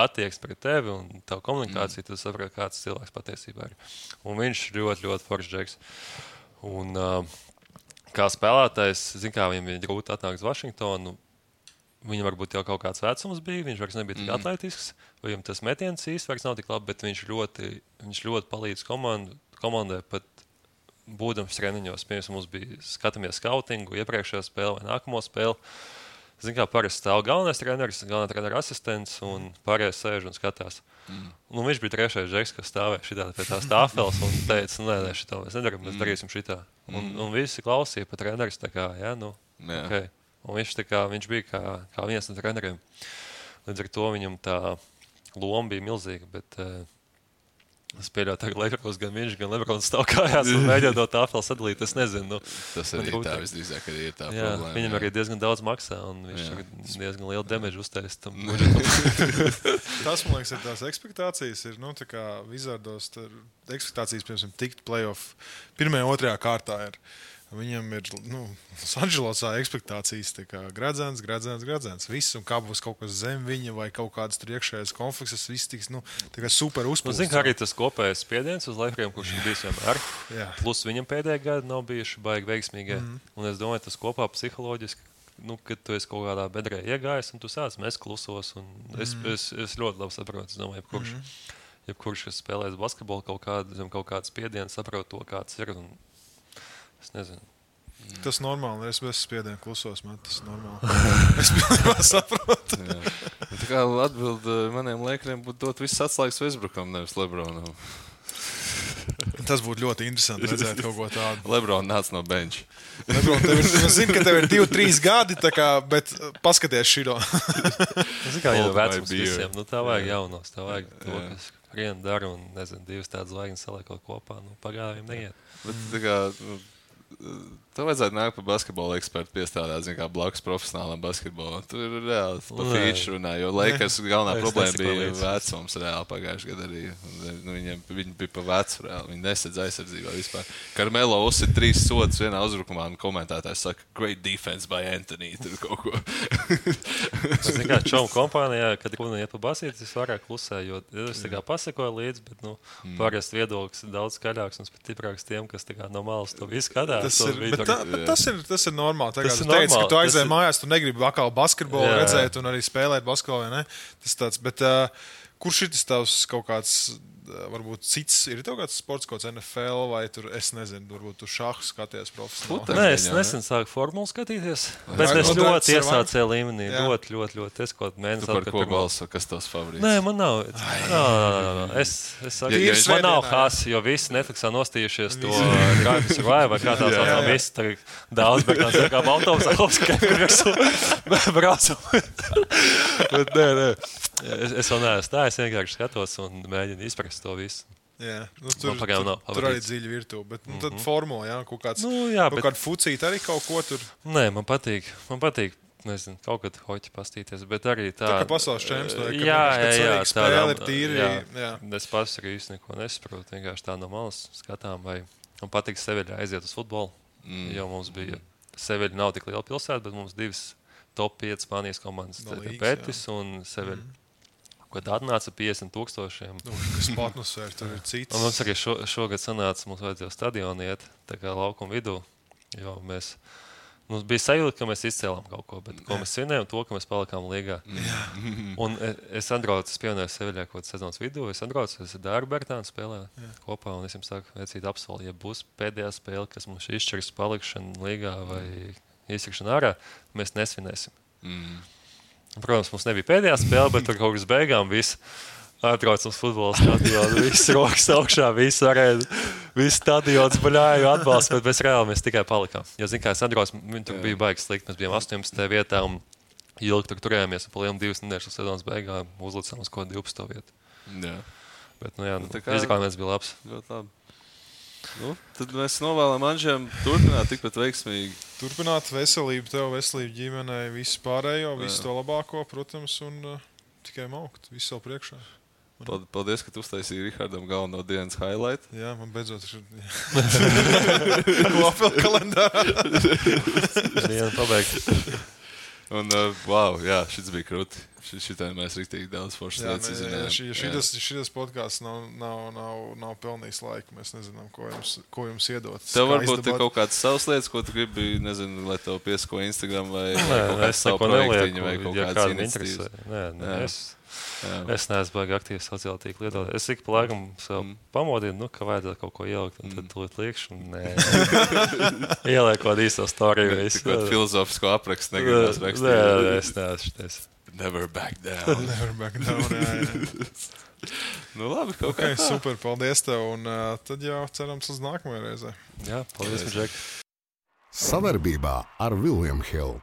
Speaker 4: attieksmi pret tevi un tavu komunikāciju, tu saproti, kāds cilvēks patiesībā ir. Un viņš ļoti, ļoti foršs džeks. Un kā spēlētājs, zinu, kā viņam bija grūti atnākt uz Vašingtonu, viņam varbūt jau kaut kāds vecums bija, viņš vairs nebija tik atletisks, vai viņam tas metiens īsti vairs nav tik labi, bet viņš ļoti palīdz komandai pat būdams treniņos. Piemēram, mums bija skatāmies skautingu, iepriekšējā spēle vai nākamo spēli. Zinu, kā parasti stāv galvenā trenera asistents un pārējais sēž un skatās. Viņš bija trešais džeks, kas stāvēja šitā pie tās tāfeles un teica, nē, šitā mēs nedaram, mēs darīsim šitā. Un visi klausīja pa treneris, tā kā, okay. Un viņš bija kā viens no treneriem. Līdz ar to viņam tā loma bija milzīga, bet es pieļauju, ka Lakers gan viņš, gan Lebrons stāv kājās un mēģina no tāfeles sadalīt. Es nezinu.
Speaker 3: Tas arī tā visdrīzāk arī ir tā problēma.
Speaker 4: Viņam arī diezgan daudz maksā un viņš diezgan lielu damage uztais tam.
Speaker 2: Tas, man liekas, ir tās ekspektācijas. Ir, tā kā Wizardos ekspektācijas, piemēram, tikt playoff pirmajā, otrajā kārtā ir. Viņam ir Sanželosā ekspektācijas, kā gradzens. Viss, un kā būs kaut kas zem viņa vai kaut kādas tur iekšējās konflikts, viss tiks super uzpūsts.
Speaker 4: Zinu, kā arī tas kopējais spiediens uz Lakeriem, kurš ir bijis vienmēr. Plus viņam pēdējā gada nav bijuši baigi veiksmīgi. Un es domāju, tas kopā psiholoģiski, kad tu esi kaut kādā bedrē iegājis un tu sāc mest klusos. Es ļoti labi saprotu, es domāju, jebkurš, kas spēlēs basketbolu kaut kādu spiedienu, saprot to, kāds ir. Es nezinu.
Speaker 2: Tas normāli. Es bez spiediena klusos, man tas normāli. Es pilnībā saprotu.
Speaker 3: Tā kā atbild maniem Lakeriem būtu dot viss atslēgas Westbrookam, nevis Lebronam.
Speaker 2: Tas būtu ļoti interesanti redzēt kaut ko tādu.
Speaker 3: Lebron nāc no benča.
Speaker 2: Lebron, es zinu, ka tev ir 2-3 gadi, bet paskaties šito.
Speaker 4: Zinu, kā jau vecums visiem. Tā vajag jaunos, tā vajag to, kas vienu dara un, nezinu, divas tādas zvaigznes saliekot kopā. Pagājiem neiet.
Speaker 3: Bet tā kā... Tev vajadzētu nākt pa basketbola ekspertu piestādāt, kā blakus profesionālam basketbolam. Tur ir reāli pa feature runā, jo Lakers galvenā problēma bija vecums reāli pagājušajā gadā arī. Viņi bija pa vecu reāli, viņi nesedz aizsardzībā vispār. Karmelo uzsit 3 sodus vienā uzbrukumā un komentētājs saka, great defense by Anthony, tur kaut ko.
Speaker 4: Es kā čomu kompānijā, kad runa iet pa basīti, es vairāk klusē, jo es tā kā pasekoju līdzi, bet, parasti viedoklis ir daudz skaļāks un stiprāks tiem, kas tā kā no malas to visu skatās.
Speaker 2: Tas ir normāli. Tas ir teicis, ka tu aizēji mājās, tu negribi atkal basketbolu redzēt un arī spēlēt basketbolu, vai ne? Tas tāds, bet kurš ir tas tavs kaut kāds, varbūt cits, ir tev kāds sports, kaut kāds NFL vai tur, es nezinu, varbūt tu šahu skaties profesionāli?
Speaker 4: Nē, es nesen sāku formulu skatīties, bet es ļoti iesācēju līmenī, ļoti. Es kaut mēnesi
Speaker 3: atpakaļ. Tu par ko balso, kas tavs favorīts?
Speaker 4: Nē, man nav. Es saku, man nav hās, jo visi Netflixā nostījušies to Drive to Survive, vai kā tā saucam, visi tagad daudz, bet tā kā autobusā apskait, kur virsū braucam. Bet nē. Es vēl neesmu tā, es vienkārši skatos un mēģinu izprast to visu.
Speaker 2: Jā, tur arī dziļi virtuve, bet tad formula, kaut kāds, kāda fucīta arī kaut ko tur.
Speaker 4: Nē, man patīk, nezinu, kaut kad hoķi pastīties, bet arī tā.
Speaker 2: Tā kā pasaules čemps,
Speaker 4: jā,
Speaker 2: spēle ir tīri. Jā.
Speaker 4: Es pats arī īsti neko nesaprotu, vienkārši tā no malas skatām, vai man patīk Seviļā aiziet uz futbolu, jo mums bija, Seviļa nav tik liela pilsēta, bet mums 2 top 5 Spānijas komandas, Betis un Seviļa. Kad atnāca 50,000.
Speaker 2: Kas atmosfēra, tur ir cits.
Speaker 4: Un mums arī šogad sanāca, mums vajadzēja stadionu iet, tā kā laukuma vidū, jo mums bija sajūta, ka mēs izcēlām kaut ko, bet ko mēs svinējām, to, ka mēs palikām līgā. Un es atbraucu, es pievienoju Seviļā kaut kāds sezonas vidū, es ar Dāru Bertānu spēlēju kopā, un es jums saku, vecīt apsolu, ja būs pēdējā spēle, kas mums izšķirs palikšanu līgā vai izsakšanu ārā, mēs nesvinēsim. Protams, mums nebija pēdējā spēle, bet tur kaut kas beigām viss. Atbrauc uz futbola stadionu, viss rokas augšā, viss varēja, viss stadions baļāju atbalstu, bet mēs reāli mēs tikai palikām. Jo, zin kā, es atbrauc, viņi tur bija baigi slikti, mēs bijām 18. vietā un ilgi tur turējāmies, un pa lielu 2 nedēļas sezonas beigām uzlicām uz kaut 12. vietu.
Speaker 3: Jā.
Speaker 4: Bet, izrāviens bija labs.
Speaker 3: Ļoti labi. Tad mēs novēlam Anžiem turpināt tikpat veiksmīgi.
Speaker 2: Turpināt veselību tev, veselību ģimenei, visu pārējo, visu to labāko, protams, un tikai maukt, visu savu priekšā.
Speaker 3: Paldies, ka tu uztaisīji Rihardam galveno dienas highlight.
Speaker 2: Jā, man beidzot ir kopēl kalendārā.
Speaker 4: Diena pabeigta.
Speaker 3: Un, wow, jā, šis bija krūti. Šitai mēs riktīgi daudz foršas lietas izzinājām.
Speaker 2: Šitas podcasts nav pelnījis laiku. Mēs nezinām, ko jums iedot.
Speaker 3: Tev varbūt ir kaut kādas savas lietas, ko tu gribi, nezinu, lai tev piesako Instagram vai kaut kāds savu projektiņu vai kaut kādas iniciatīvas.
Speaker 4: Es neesmu baigi aktīvs sociālā tīkla lietotājs. Es ik pa laikam sev pamodinu, ka vajadzētu kaut ko ielikt, un tad tūlīt liekšu, un ieliek kaut īsto storiju.
Speaker 3: Kaut filozofisko aprakstu negribas rakstīt.
Speaker 4: Nē, es neesmu.
Speaker 3: Never back down.
Speaker 2: Never back down, jā.
Speaker 3: Nu labi, kaut kā tā.
Speaker 2: Super, paldies tev, un tad jau cerams uz nākamajai reizē.
Speaker 4: Jā, paldies, Džek.
Speaker 1: Sadarbībā ar William Hill.